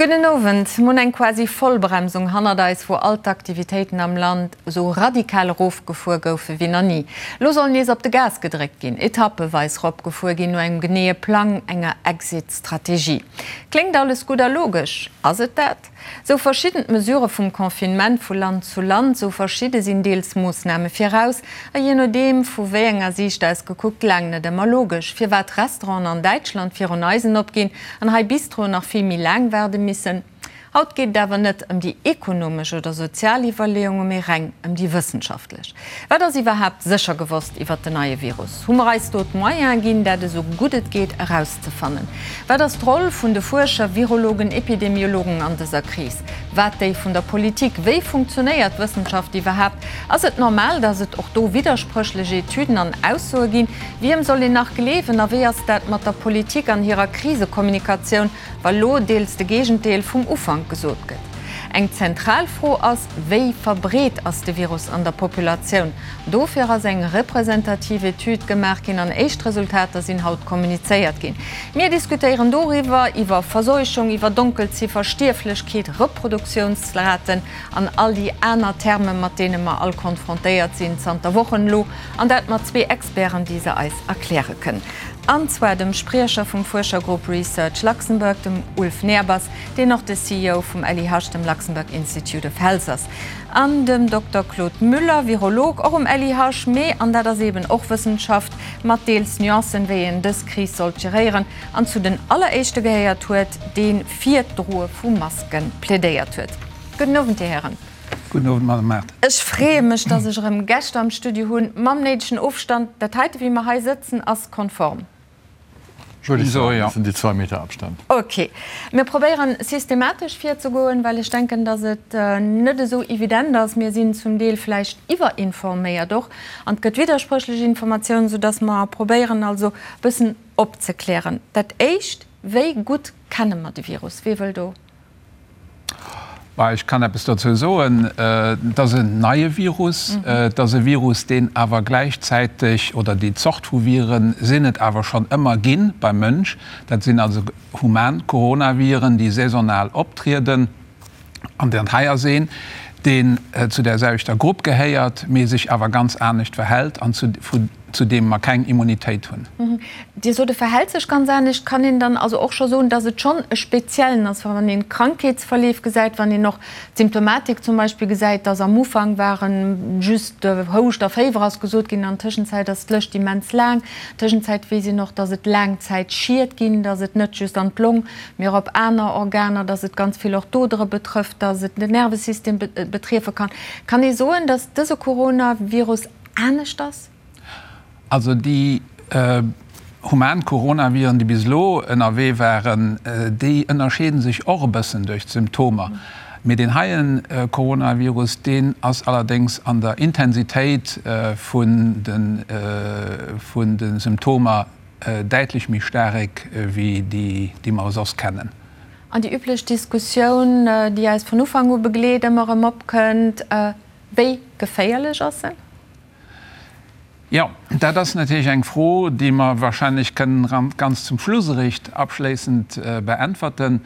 Gudden Owend. Mir hunn eng quasi Vollbremsung hannert eis, wou all d'Aktivitéiten am Land esou radikal erofgefuer goufe wéi nach ni. Elo soll nees op de Gas gedréckt ginn, etappeweis eropgefuer ginn, no engem geneeë Plang, enger Exit-Strategie. Kléngt alles gutt a logesch. Ass et dat? Sou verschidden d'Mesurë vum Confinement vu Land zu Land, sou verschidde sinn deels Moossname viraus a jee nodeem vu wéi enger Siicht aus gekuckt laang net ëmmer logesch, firwat Restauranten an Däitschland virun eisen opginn an hei Bistroen nach vill méi laang waarde missen. Haut geet et awer net ëm déi ekonomesch oder sozial Iwwerleeunge mee reng ëm déi wëssenschaftlech. Wat ass iwwerhaapt sécher gewosst iwwert den neie Virus? Hu mer eis do d'Moyene ginn, dat esou gutt et geet erauszefannen? Wat ass d'Roll vun de Fuerscher, Virologen, Epidemiologen an dëser Kris? Wat déi vun der Politik? Wéi funktionéiert d'Wëssenschaft iwwerhaapt? Ass et normal, datt et och do widderspréchlech Etüden an Aussoe ginn? Wiem soll een nach gleewen? A wéi ass dat mat der Politik an hirer Krisekommunikatioun, wa lo deels de Géigendeel vum Ufank gesot gëtt? Eng zentral Fro ass, Wéi verbreet ass de Virus an der Populatioun? Dofir ass eng representativ Etüd gemaach ginn an éischt Resultater sinn haut kommunizéiert ginn. Mir diskutéieren doriwwer, iwwer Verseuchung, iwwer Donkelziffer, Stierflechkeet, Reproduktiounsraten an all déi aner Terme mat deene mer all konfrontéiert sinn zanter Wochen elo. An dat mat zwee Experten, déi se eis erkläre kënnen. An zwar dem Spriecher vum Fuerschergrupp Research Luxembourg, dem Ulf Nehrbass, deen och de CEO vum LIH, dem Luxembourg Institute of Health ass, an dem Dokter Claude Müller, Virolog, och um LIH, mee, an dat ass eeben och Wëssenschaft, mat deels Nuancen, wéi een dës Kris sollt geréieren, an zu den alleréischte gehéiert huet, dee fir d'Droe vu Maske plädéiert huet. Gudden Owend, Dir Hären. Gudden Owend, Madame Mart. Ech freeë mech, dass ech erëm Gäscht am Studio hunn, mam néidegen Ofstand. Dat heite, wéi mer hei sëtzen, ass konform. Würde ich sagen, das sind die 2 Meter Abstand. Ok. Mir probéieren systematesch virzegoen, well ech denken, dass et net esou evident ass. Mir sinn zum Deel vläicht iwwerinforméiert och an et gëtt widderspréchlech Informatiounen, soudass mer probéieren also e bëssen opzeklären. Dat Éischt, Wéi gutt kenne mer de Virus? Wie wëll do? Bah, ech kann eppes dozou soen. Et ass en neie Virus. Et ass e Virus, deen awer gläichzäiteg, oder déi Zort vu Vire sinn et awer schonn ëmmer gi beim Mënsch. Dat sinn also human Coronaviren, déi saisonal optrieden. An dat hei ass een, deen zu där selwechter Grupp gehéiert, mee sech awer ganz anescht verhält an zu, vu, zu deem mer keng Immunitéit hunn. Dir sot, e verhält sech ganz anescht. Kann een dann also och scho soen, datt et schonn e speziellen ass, wann een d'Krankheetsverleef gesäit, wann een och d'Symptomatik zum Beispill gesäit, datt am Ufank ware just Houscht a Féiwer ass gesot ginn, an Tëschenzäit ass d'Lëscht immens laang. Tëschenzäit weess een och, datt et Laangzäitschied ginn, datt et net just an d'Long, mee och op aner Organer, datt et ganz vill och d'Odere betrëfft, datt et den Nervesystem betriefe kann. Kann ee soen, datt dëse Coronavirus anescht ass? Also déi human Coronaviren, déi bis elo ënnerwee waren, déi ënnerscheede sech och e bëssen duerch d'Symptomer. Mee deen heien Coronavirus, deen ass allerdéngs an der Intensitéit vun de Symptomer däitlech méi staarek wéi déi, déi mer soss kennen. An déi üblech Diskussioun, déi eis vun Ufank u begleet, ëmmer erëm opkënnt, Wéi geféierlech ass en? Jo, dat ass natierlech eng Fro, déi mer wahrscheinlech kënnen ganz zum Schluss eréischt abschléissend beäntwerten.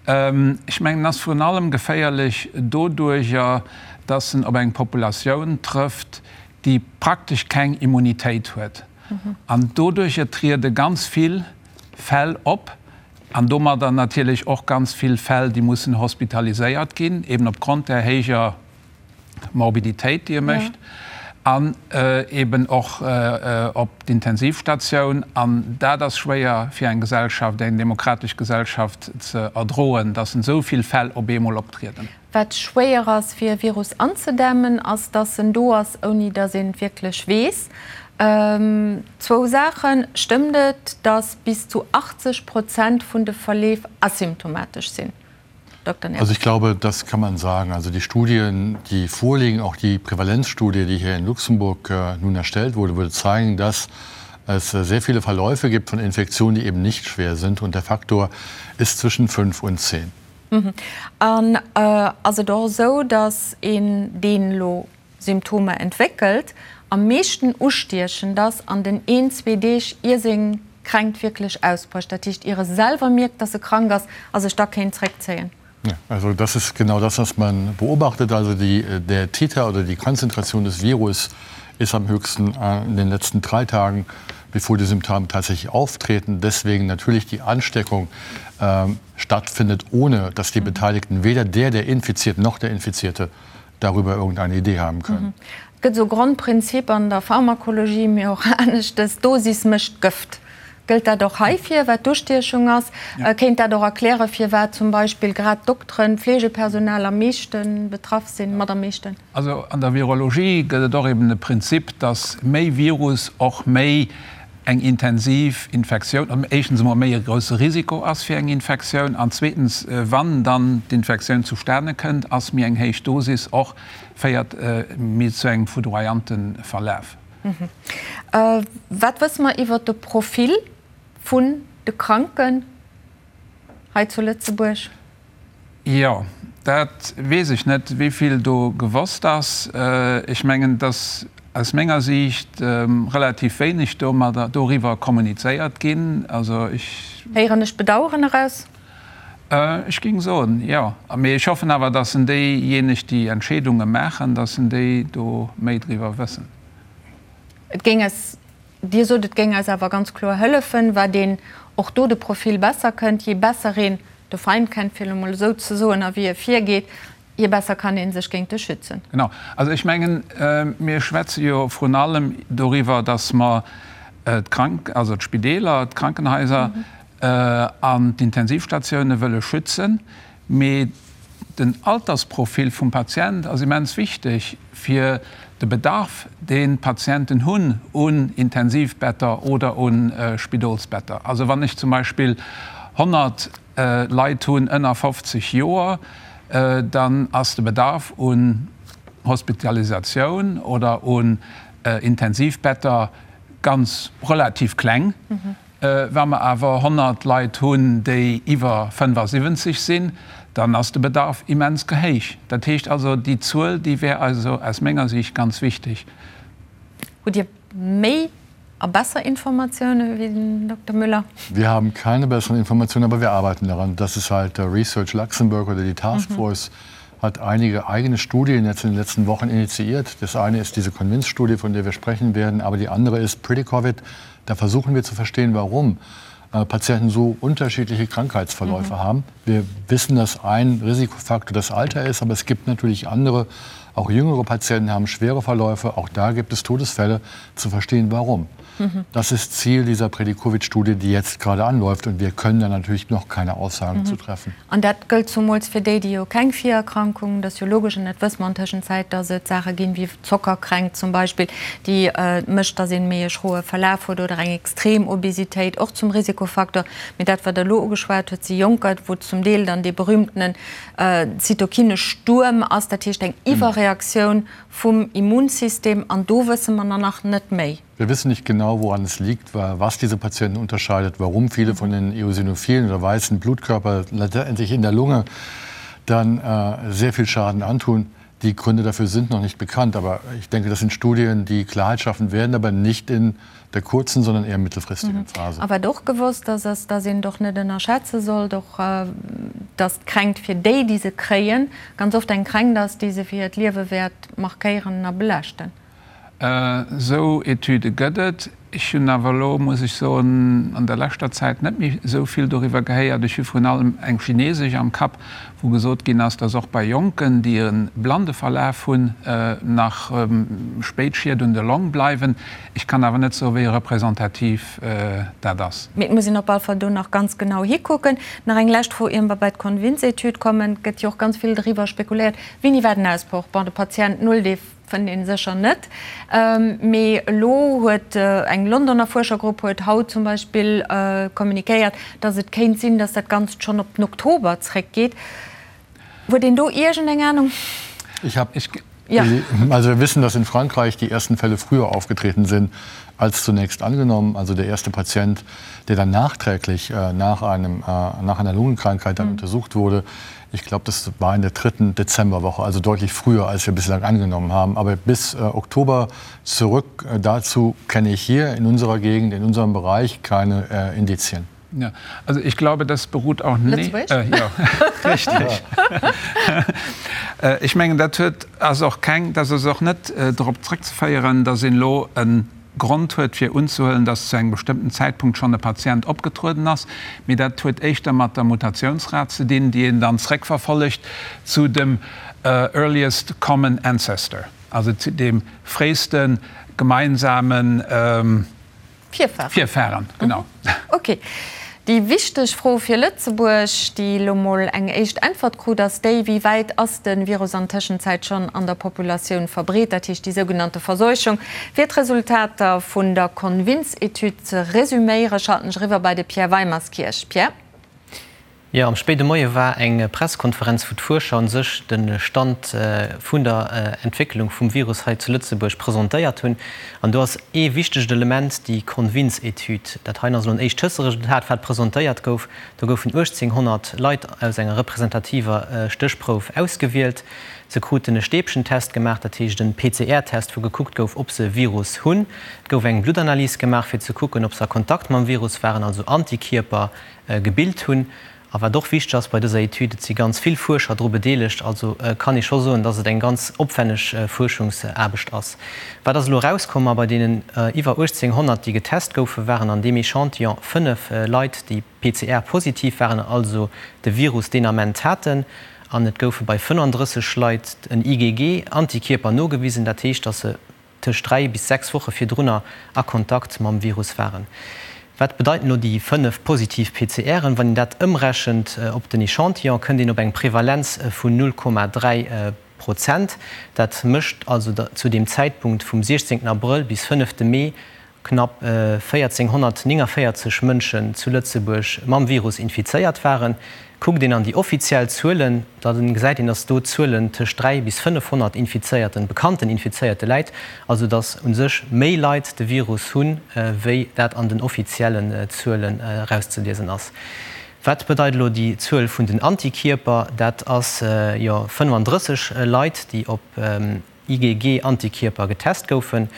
Ech mengen, en ass virun allem geféierlech doduerjer, dass en op eng Populatioun trëfft, déi praktesch keng Immunitéit huet. An doduerjer triede ganz vill Fäll op an domadder natierlech och ganz vill Fäll, déi mussen hospitaliséiert ginn, eben opgrond där héijer Morbiditéit, déi e mécht, an eben och op d'Intensivstatioun. An dat ass schwéier fir eng Gesellschaft, eng demokratesch Gesellschaft ze erdroen, dass esou vill Fäll op eemol optrieden. Wat schwéier ass fir e Virus anzedämmen, ass dass en do ass, ouni dass een et wierklech weess. Zwou Saachen, Stëmmt et, dass bis zu 80 Prozent vun de Verleef asymptomatesch sinn? Dokter Nehrbass. Also ich glaube, das kann man sagen. Also die Studien, die vorliegen, auch die Prävalenzstudie, die hier in Luxemburg nun erstellt wurde, würde zeigen, dass es sehr viele Verläufe gibt von Infektionen, die eben nicht schwer sind. Und der Faktor ist zwischen 5 und 10. An ass et och esou, datt een, deen elo Symptomer entwéckelt, am meeschten ustiechend ass an den een, zwee Deeg ier seng. d'Kränkt wierklech ausbrécht, dat heescht ier e selwer mierkt, dass e krank ass a sech da kéint zréckzéien? Ja, also das ist genau das, was man beobachtet. Also die, der Titer oder die Konzentration des Virus ist am höchsten äh, in den letzten drei Tagen, bevor die Symptome tatsächlich auftreten. Deswegen natürlich die Ansteckung äh, stattfindet, ohne dass die mhm. Beteiligten weder der, der infiziert noch der Infizierte darüber irgendeine Idee haben können. Mhm. Et gëtt esou Grondprinzip an der Pharmakologie, mee och aneschtes, Dosis mécht d'Gëft. Gëllt dat och heifir, wat d'Ustiechung ass? Kéint dat och erklären, firwat zum Beispill grad d'Dokteren, d'Fleegepersonal am meeschte betraff sinn, mat am meeschten? Also an der Virologie gëtt et och eben e Prinzip, dass méi Virus och méi eng intensiv Infektioun, éischtens emol méi e grousse Risiko ass fir eng Infektioun an zweetens, wann dann d'Infektioun zustane kënnt, ass méi eng héich Dosis och, féiert méi zu engem foudroyante Verlaf. Wat wësse mer iwwert de Profil vun de Kranken hei zu Lëtzebuerg? Jo, dat weess ech net, wéi vill do gewosst ass. Ech mengen, dass aus menger Siicht relativ wéineg domadder, doriwwer kommunizéiert ginn. Also ech. Héieren ech Bedauern eraus? Ech géing soen, jo. Mee ech hoffen awer, dass en déijéineg, déi Entscheedunge maachen, dass en déi do méi driwwer wëssen. Et géing eis Dir sot, et géing eis awer ganz kloer hëllefen, wat een och do de Profil besser kënnt. Jee besser een de Feind kennt, fir elo mol esou ze soen, a wéi e virgeet, jee besser kann ee sech géint e schützen. Genau. Also ech mengen, mir schwätze jo vrun allem doriwwer, dass mer d'Krank-, also d'Spideeler, d'Krankenhaiser an d'Intensivstatioune wëlle schützen. Mee den Altersprofil vum Patient ass immens wichteg fir de Bedarf, deen d'Patienten hunn un Intensivbetter oder u Spidolsbetter. Also wann ech zum Beispill 100 Leit hunn ënner 50 Joer, dann ass de Bedarf un Hospitalisatioun oder un Intensivbetter ganz relativ kleng. Wa mer awer 100 Leit hunn, déi iwwer 75 sinn, dann ass de Bedarf immens gehéich. Dat heescht also, déi Zuel, déi wär also aus menger Sicht ganz wichteg. Hutt Dir méi a besser Informatiounen wéi den Dokter Müller? Wir haben keine besseren Informationen, aber wir arbeiten daran. Das ist halt Research Luxembourg oder die Taskforce hat einige eigene Studien jetzt in den letzten Wochen initiiert. Das eine ist diese Convince-Studie, von der wir sprechen werden, aber die andere ist Pretty-Covid. Da versuchen wir zu verstehen, warum äh, Patienten so unterschiedliche Krankheitsverläufe mhm. haben. Wir wissen, dass ein Risikofaktor das Alter ist, aber es gibt natürlich andere, auch jüngere Patienten haben schwere Verläufe. Auch da gibt es Todesfälle, zu verstehen, warum. Mhm. Das ist Ziel dieser Predikovic-Studie, die jetzt gerade anläuft und wir können da natürlich noch keine Aussagen mhm. zu treffen. An dat gëllt zumools fir déi, déi jo keng Virerkrankungen, dat ass jo logesch an dat wësse mer an Tëschenzäit, dass et Saache ginn, wéi Zockerkränkt zum Beispill, déi mécht, dass een méi e schroe Verlaf huet oder eng extrem Obesitéit, och zum Risikofaktor. Mee dat, wat Der elo ugeschwat hutt, si Jonker, wou zum Deel dann dee berühmtenen Zytokinestuerm ass, dat heescht eng Iwwerreaktioun vum Immunsystem an do wësse mer nach net méi. Wir wissen nicht genau, woran es liegt, was diese Patienten unterscheidet, warum viele von den Eosinophilen oder weißen Blutkörper letztendlich in der Lunge dann äh, sehr viel Schaden antun. Die Gründe dafür sind noch nicht bekannt, aber ich denke, das sind Studien, die Klarheit schaffen werden, aber nicht in der kurzen, sondern eher mittelfristigen mhm. Phase. A wat och gewosst ass, ass, dass een doch net ënnerschätze sollt, och äh, dass d'Kränkt fir déi, déi se kréien, ganz oft eng Kränkt ass, déi se fir hiert Liewe wäert markéieren a belaaschten. Esou Etüde gëtt et. Ech hunn awer elo, muss ech soen, an der leschter Zäit net méi esou vill doriwwer gehéiert. Ech hu vrun allem eng chinesesch am Kapp, wou gesot ginn ass, dass och bei Jonken, déi e blande Verlaf hunn, nach spéit Schied un de Long bleiwen. Ech kann awer net soen, wéi representativ dat ass. Mee et muss een op all Fall do nach ganz genau hikucken. Nach eng lescht Fro, ier mer bei d'Convince-Etüd kommen. Et gëtt jo och ganz vill driwwer spekuléiert, Wéini war den Ausbroch? Bon, de Patient null, dee Fënnt een sécher net. Mee elo huet eng Londoner Fuerschergrupp huet haut zum Beispill kommunikéiert, datt et kéint sinn, datt dat Ganzt schonn op den Oktober zréckgeet. Huet een do iergendeng Anung? Ich hab, also wir wissen, dass in Frankreich die ersten Fälle früher aufgetreten sind. als zunächst angenommen. Also der erste Patient, der dann nachträglich äh, nach, einem, äh, nach einer Lungenkrankheit dann mhm. untersucht wurde, ich glaube, das war in der dritten Dezemberwoche, also deutlich früher, als wir bislang angenommen haben. Aber bis äh, Oktober zurück äh, dazu kenne ich hier in unserer Gegend, in unserem Bereich keine äh, Indizien. Ja, also ich glaube, das beruht auch nicht. Äh, ja, richtig. Äh, ich mengen, dat huet ass och keng, dat ass och net äh, drop zréckzeféieren, datt een elo e Grond huet fir unzehuelen, datt zu engem bestëmmten Zäitpunkt schonn e Patient opgetrueden ass, mee dat huet éischter mat der Mutatiounsrat ze dinn, déi een dann zréckverfollegt zu dem earliest common ancestor, also zu deem fréiste gemeinsamen Virfahren. Virfahren, genau. Ok. Déi wichteg Fro fir Lëtzebuerg, déi elo mol eng éischt Äntwert krut, ass déi, Wéi wäit ass de Virus an Tëschenzäit schonn an der Populatioun verbreet, dat heescht déi sougenannte Verseuchung? Fir d'Resultater vun der Convince-Etüd ze resüméieren, schalten ech eriwwer bei de Pierre Weimerskirch. Pierre? Jo, am spéide Moie war eng Presskonferenz, wou d'Fuerscher un sech de Stand vun der Entwécklung vum Virus hei zu Lëtzebuerg presentéiert hunn. An do ass ee wichtegt Element déi Convince-Etüd. Dat heien ass elo en éischt Tësteresultat, wat presentéiert gouf. Do goufen 1.800 Leit aus enger representativer Stéchprouf ausgewielt. Se kruten e Stäbchentest gemaach, dat heescht en PCR-Test, wou gekuckt gouf, ob se e Virus hunn. Et gouf eng Bluttanalys gemaach, fir ze kucken, ob se a Kontakt mam Virus waren, also Antikierper gebilt hunn. A wat och wichteg ass bei dëser Etüd, et si ganz vill Fuerscher dru bedeelegt, also kann ee scho soen, dass et eng ganz opwenneg Fuerschungsaarbecht ass. Wat ass elo erauskomm? Ma bei deenen iwwer 1.800, déi getest goufen, waren an deem Echantillon 5 Leit, déi PCR-positiv waren, also de Virus deen Ament haten. An et goufe bei 35 Leit en IgG-Antikierper nogewisen, dat heescht, dass se tëscht 3 bis 6 Woche virdrunner a Kontakt mam Virus waren. Wat bedeiten elo déi 5 positiv PCRen? Wann een dat ëmrechent op den Echantillon, kënnt een op eng Prevalenz vun 0,3 Prozent. Dat mécht also zu deem Zäitpunkt vum 16 Abrëll bis 5 Mee knapp 1.449 Mënschen zu Lëtzebuerg mam Virus infizéiert waren. Kuckt een an déi offiziell Zuelen, da gesäit een, datt do d'Zuelen tëscht 3 bis 500 Infizéierten, bekannten Infizéierte läit. Also datt u sech méi Leit de Virus hunn, wéi dat an den offiziellen Zuelen erauszeliesen ass. Wat bedeit elo déi Zuel vun den Antikierper? Dat ass jo 35 Leit, déi op IgG-Antikierper getest goufen.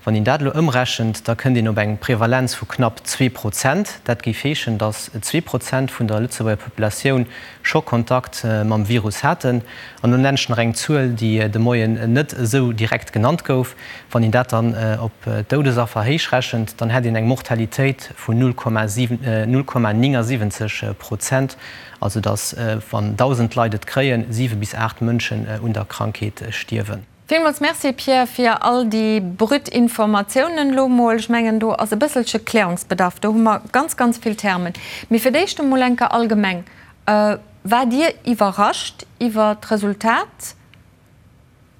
Wann een dat elo ëmrechent, da kënnt een op eng Prevalenz vu knapp 2%. Dat géif heeschen, datt 2% vun der Lëtzebuerger Populatioun scho Kontakt mam Virus haten. An elo nennen ech nach eng Zuel, déi de Moien net esou direkt genannt gouf. Wann een dat dann op d'Doudesaffer héichrechent, dann hätt een eng Mortalitéit vun 0,79 Prozent. Also datt, wann 1.000 Leit et kréien, 7 bis 8 Mënschen un der Krankheet stierwen. Villmools Merci Pierre fir all déi brut Informatiounen elo mol. Ech mengen do ass e bësselche Klärungsbedarf, do hu mer ganz ganz vill Termen. Mee fir d'éischt emol enker allgemeng, Waart Dir iwwerrascht iwwer d'Resultat?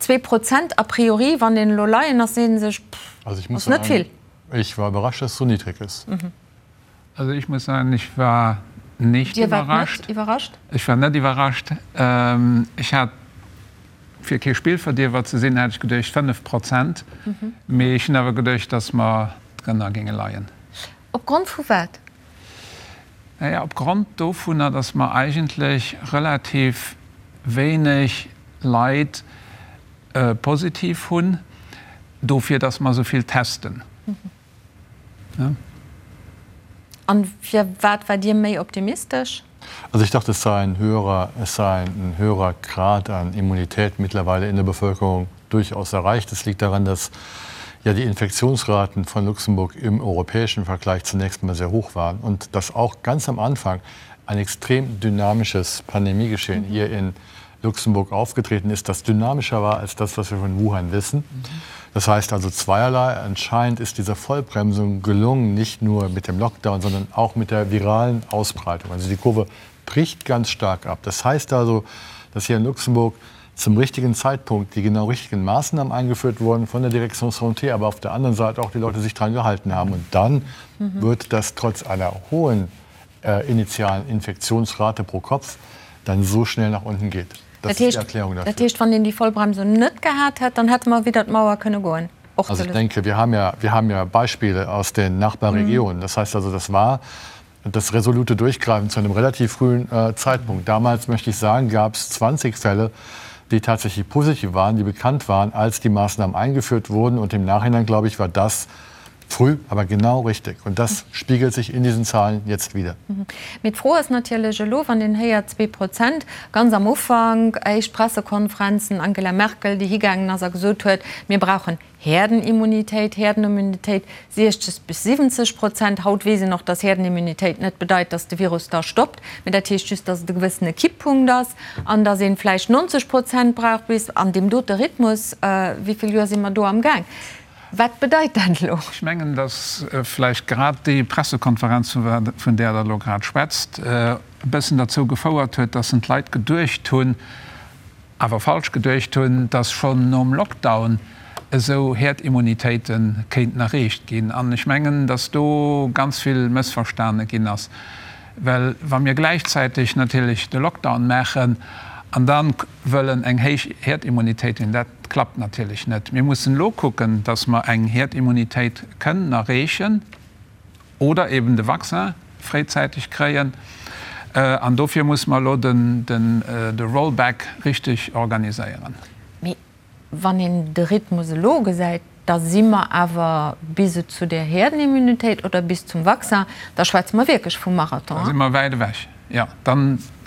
2% a priori, wann een elo Laien ass, seet en sech, pff, ass net vill. Ich war überrascht, dass es so niedrig ist. Also ich muss sagen, ich war nicht Dir waart überrascht. net iwwerrascht? Ech war net iwwerrascht. Ech hat, fir kee Spillverdierwer ze sinn, hat ech geduecht 5 Prozent. Mee ech hunn awer geduecht, datt mer drënner géinge leien. Op Grond vu wat? Naja, op Grond dovunner, datt mer eigentlech relativ wéineg Leit positiv hunn, dofir datt mer esou vill testen. An firwat waart Dir méi optimistesch? Also ich dachte, es sei ein höherer, es sei ein höherer Grad an Immunität mittlerweile in der Bevölkerung durchaus erreicht. Es liegt daran, dass ja die Infektionsraten von Luxemburg im europäischen Vergleich zunächst mal sehr hoch waren und dass auch ganz am Anfang ein extrem dynamisches Pandemiegeschehen mhm. hier in Luxemburg aufgetreten ist, das dynamischer war als das, was wir von Wuhan wissen. Mhm. Das heißt also zweierlei. Anscheinend ist diese Vollbremsung gelungen, nicht nur mit dem Lockdown, sondern auch mit der viralen Ausbreitung. Also die Kurve bricht ganz stark ab. Das heißt also, dass hier in Luxemburg zum richtigen Zeitpunkt die genau richtigen Maßnahmen eingeführt wurden von der Direktion Santé, aber auf der anderen Seite auch die Leute sich daran gehalten haben. Und dann mhm. wird das trotz einer hohen äh, initialen Infektionsrate pro Kopf dann so schnell nach unten geht. Dat heescht, dat heescht, wann een déi Vollbremsung net gehat hätt, dann hätte mer widder d'Mauer kënne goen? Och Also ich denke, wir haben ja, wir haben ja Beispiele aus den Nachbarregionen. Das heißt also, das war das resolute Durchgreifen zu einem relativ frühen äh, Zeitpunkt. Damals, möchte ich sagen, gab es 20 Fälle, die tatsächlich positiv waren, die bekannt waren, als die Maßnahmen eingeführt wurden. Und im Nachhinein, glaube ich, war das früh, aber genau richtig. Und das spiegelt sich in diesen Zahlen jetzt wieder. Mhm. Mee d'Fro ass natierlech elo, wann een héiert 2%, ganz am Ufank, éischt Pressekonferenzen, Angela Merkel, déi higaangen ass a gesot huet, mir brauchen Herdenimmunitéit, Herdenimmunitéit 60 bis 70 Prozent. Haut weess een och, dass Herdenimmunitéit net bedeit, dass de Virus da stoppt, mee dat heescht just, dass et e gewëssene Kipppunkt ass an dass ee vläicht 90 Prozent brauch bis an deem dote Rhythmus. Wéi vill Joer si mer do amgaang? Wat bedeit dat elo? Ech mengen, dass vläicht grad déi Pressekonferenz, vun där Der elo grad schwätzt, e bëssen derzou gefouert huet, dass en d'Leit geduecht hunn, awer falsch geduecht hunn, dass schonn nom Lockdown esou Herdimmunitéite kéinten erreecht ginn. An ech mengen, dass do ganz vill mëssverstane ginn ass. Well wa mir gläichzäiteg natierlech de Lockdown maachen an da wëllen eng héich Herdimmunitéit hunn, dat klappt natierlech net. Mir mussen elo kucken, dass mer eng Herdimmunitéit kënnen erreechen oder eben de Vaccin fréizäiteg kréien. An dofir musse mer elo de Rollback richteg organiséieren. Mee Wann een de Rhythmus elo gesäit, da si mer awer bis et zu där Herdenimmunitéit oder bis zum Vaccin, da schwätze mer wierklech vum Marathon. Da si mer wäit ewech, jo. Da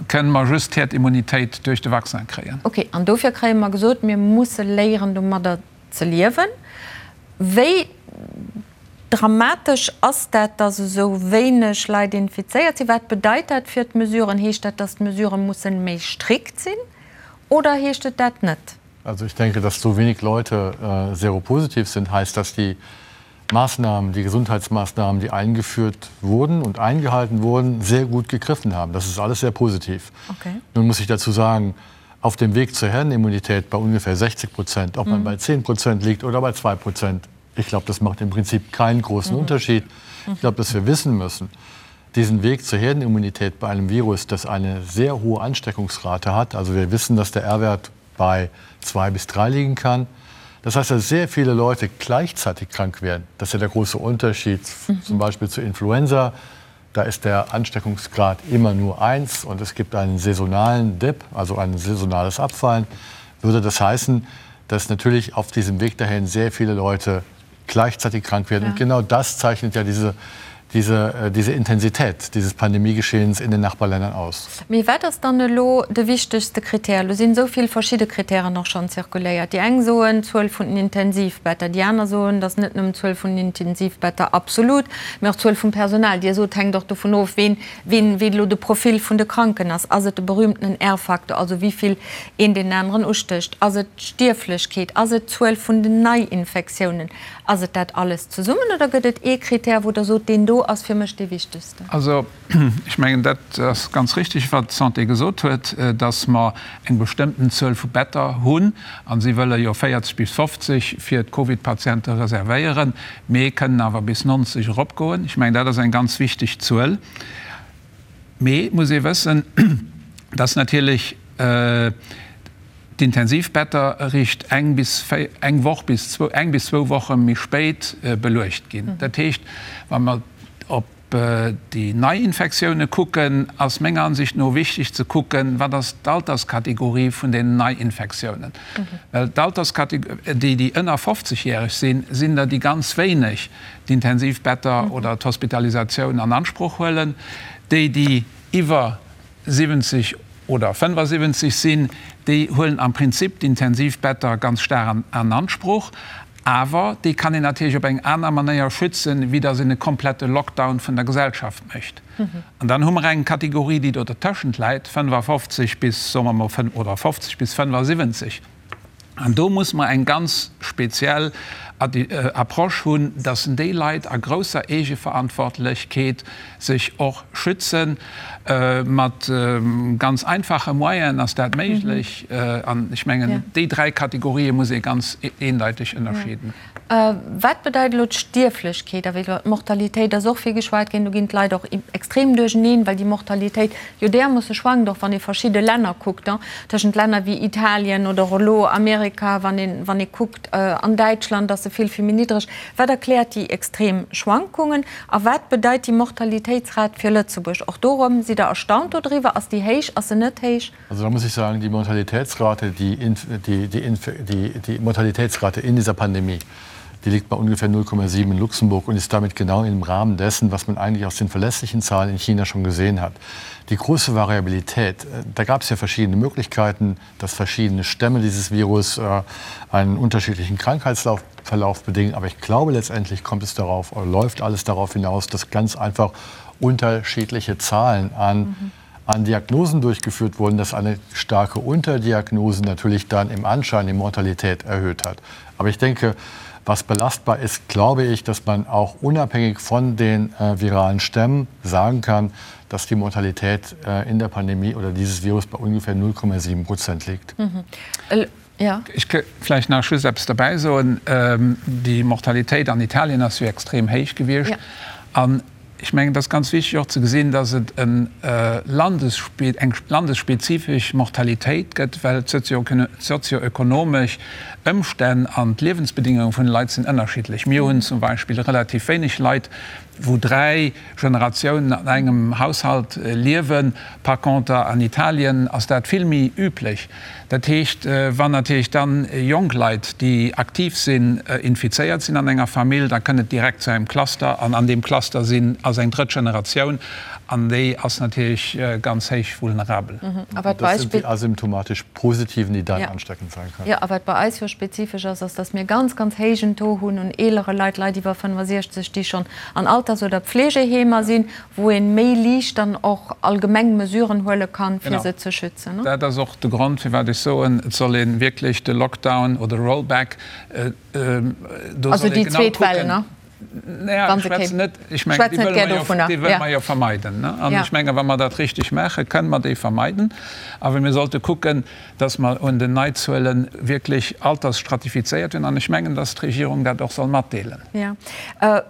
kënne mer just d'Herdimmunitéit duerch de Vaccin kréien. Okay, an dofir kréie mer gesot, mir musse léieren domadder ze liewen. Wéi dramatesch ass dat, datt esou wéineg Leit infizéiert sinn? Wat bedeit dat fir d'Mesuren? Heescht dat, datt d'Mesurë mussen méi strikt sinn? Oder heescht et dat net? Also ich denke, dass so wenig Leute äh, seropositiv sind, heißt, dass die Maßnahmen, die Gesundheitsmaßnahmen, die eingeführt wurden und eingehalten wurden, sehr gut gegriffen haben. Das ist alles sehr positiv. Okay. Nun muss ich dazu sagen, auf dem Weg zur Herdenimmunität bei ungefähr 60 Prozent, ob man mhm. bei 10 Prozent liegt oder bei 2 Prozent, ich glaube, das macht im Prinzip keinen großen mhm. Unterschied. Ich glaube, dass wir wissen müssen, diesen Weg zur Herdenimmunität bei einem Virus, das eine sehr hohe Ansteckungsrate hat, also wir wissen, dass der R-Wert bei 2 bis 3 liegen kann. Das heißt, dass sehr viele Leute gleichzeitig krank werden. Das ist ja der große Unterschied mhm. zum Beispiel zu Influenza. Da ist der Ansteckungsgrad immer nur 1 und es gibt einen saisonalen Dip, also ein saisonales Abfallen. Würde das heißen, dass natürlich auf diesem Weg dahin sehr viele Leute gleichzeitig krank werden. Ja. Und genau das zeichnet ja diese, diese, äh, diese Intensität dieses Pandemiegeschehens in den Nachbarländern aus. Mee wat ass dann elo de wichtegste Kritär? Elo sinn esou vill verschidde Kritären och schonn zirkuléiert. Déi eng soen, d'Zuel vun den Intensivbetter, déi aner soen, dass net nëmmen d'Zuel vun den Intensivbetter absolut, mee och d'Zuel vum Personal. Dir sot, hänkt och dovun of, ween, ween, wéi elo de Profil vun de Kranken ass. Ass et de berühmtenen R-Faktor, also wéi vill een deen aneren ustécht? Ass et d'Stierflechkeet? Ass et d'Zuel vun den Neiinfektiounen? Ass et dat alles zesummen oder gëtt et ee Kritär, wou Der sot, deen do ass fir mech dee wichtegsten? Also, ech mengen, dat ass ganz richtig, wat d'Santé gesot huet, dass mer eng bestëmmten Zuel vu Better hunn. A si wëlle jo 40 bis 50 fir d'Covid-Patiente reservéieren, mee kënnen awer bis 90 eropgoen. Ech mengen, dat ass eng ganz wichteg Zuel. Mee et muss ee wëssen, dass natierlech d'Intensivbetter eréischt eng bis eng Woch bis zwou, eng bis zwou Woche méi spéit beluecht ginn. Dat heescht, wa mer op déi Neiinfektioune kucken, ass menger Ansicht no wichteg ze kucken, wat ass d'Alterskategorie vun den Neiinfektiounen. Well d'Alterskategorie, déi, déi ënner 50 järeg sinn, sinn der déi ganz wéineg d'Intensivbetter oder d'Hospitalisatioun an Ansproch huelen. Déi, déi iwwer 70 oder 75 sinn, déi huelen am Prinzip d'Intensivbetter ganz staark an Ansproch. Awer déi kann een natierlech op eng aner Manéier schützen, wéi datt een e komplette Lockdown vun der Gesellschaft mécht. An dann hu mer eng Kategorie, déi do dertëschent läit, 55 bis, soe mer mol, oder 50 bis 75. An do muss mer eng ganz speziell Approche hunn, dass déi Leit a grousser Eegeverantwortlechkeet sech och schützen. Mat ganz einfache Moyenen ass dat méiglech. An ech mengen, déi dräi Kategorië muss ee ganz eendeiteg ënnerscheeden. Wat bedeit elo d'Stierflechkeet? A wéi iwwer d'Mortalitéit ass och vill geschwat ginn. Do ginn d'Leit och extrem duercheneen, well déi Mortalitéit jo därmoosse schwankt, och wann ee verschidde Länner kuckt, tëschent Länner wéi Italien oder och elo Amerika, wann een, wann ee kuckt an Däitschland ass se vill, vill méi niddreg. Wat erkläert déi extrem Schwankungen a wat bedeit déi Mortalitéitsrat fir Lëtzebuerg? Och do erëm, sidd Der erstaunt dodriwwer? Ass déi héich, ass se net héich? Also da muss ich sagen, die Mortalitätsrate, die, die, die, die, die Mortalitätsrate in dieser Pandemie, die liegt bei ungefähr 0,7 in Luxemburg und ist damit genau im Rahmen dessen, was man eigentlich aus den verlässlichen Zahlen in China schon gesehen hat. Die große Variabilität, äh, da gab es ja verschiedene Möglichkeiten, dass verschiedene Stämme dieses Virus äh, einen unterschiedlichen Krankheitsverlauf bedingen. Aber ich glaube, letztendlich kommt es darauf, oder läuft alles darauf hinaus, dass ganz einfach unterschiedliche Zahlen an mhm an Diagnosen durchgeführt wurden, dass eine starke Unterdiagnose natürlich dann im Anschein die Mortalität erhöht hat. Aber ich denke, was belastbar ist, glaube ich, dass man auch unabhängig von den äh, viralen Stämmen sagen kann, dass die Mortalität äh, in der Pandemie oder dieses Virus bei ungefähr 0,7 Prozent liegt. Mhm. Äh, ja. Ech ka vläicht nach just eppes derbäi soen. Ähm, déi Mortalitéit an Italien ass jo extrem héich gewiescht. Ja. An Ech mengen, et ass ganz wichtig och ze gesinn, dass et eng landesspezifesch Mortalitéit gëtt, well d'sozioökonomesch Ëmstänn an d'Liewensbedingunge vun de Leit sinn ënnerschiddlech. Mir hunn zum Beispill relativ wéineg Leit, wou dräi Generatiounen an engem Haushalt liewen. Par conter an Italien ass dat vill méi üblech. Dat heescht, wann natierlech dann jonk Leit, déi aktiv sinn, infizéiert sinn an enger Famill, da kënnt et direkt zu engem Cluster an an deem Cluster sinn, ass eng drëtt Generatioun an déi ass natierlech ganz héich vulnerabel. A wat Das sind die asymptomatisch Positiven, die dann ansteckend sein können. Jo, a wat bei eis jo spezifesch ass, ass, dass mir ganz, ganz héijen Taux hunn un eelere Leit, Leit iwwer 65, déi schonn an Alters oder Pflegeheemer sinn, wou ee méi liicht dann och allgemeng Mesuren huele kann, fir se ze schützen. Dat ass och de Grond, firwat ech soen, et soll ee wierklech de Lockdown oder Rollback, do soll ee genau kucken. Naja, ech schwätzen net, ech mengen, déi wëlle mer jo, déi wëlle mer jo vermeiden. An ech menge wa mer dat richteg maachen, kënnen mer déi vermeiden. Awer mir sollte kucken, dass mer un den Neizuele wierklech altersstratifizéiert hunn. An ech mengen, dass d'Regierung dat och soll matdeelen. Jo.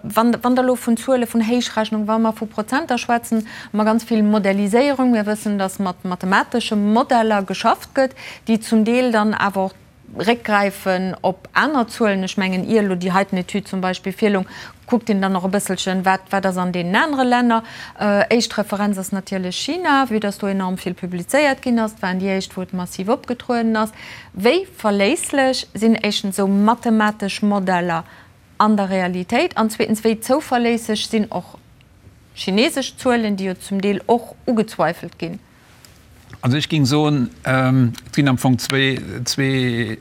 Wann Der elo vun Zuele vun Héichrechnung, wa mer vu Prozenter schwätzen, hu mer ganz vill Modelliséierung. Mir wëssen, dass mat mathematesche Modeller geschafft gëtt, déi zum Deel dann awer och réckgräifen op aner Zuelen. Ech mengen, ier elo déi heiten Etüd zum Beispill virloung, kuckt een dann och e bësselchen, wat, wat ass an deenen anere Länner. Éischt Referenz ass natierlech China, vue dass do enorm vill publizéiert ginn ass. Et waren déi éischt, wou et massiv opgetrueden ass. Wéi verléisslech sinn éischtens esou mathematesch Modeller an der Realitéit an zweetens, wéi zouverléisseg sinn och chinesesch Zuelen, déi jo zum Deel och ugezweifelt ginn? Also ech géing soen, et ginn am Fong zwee, zwee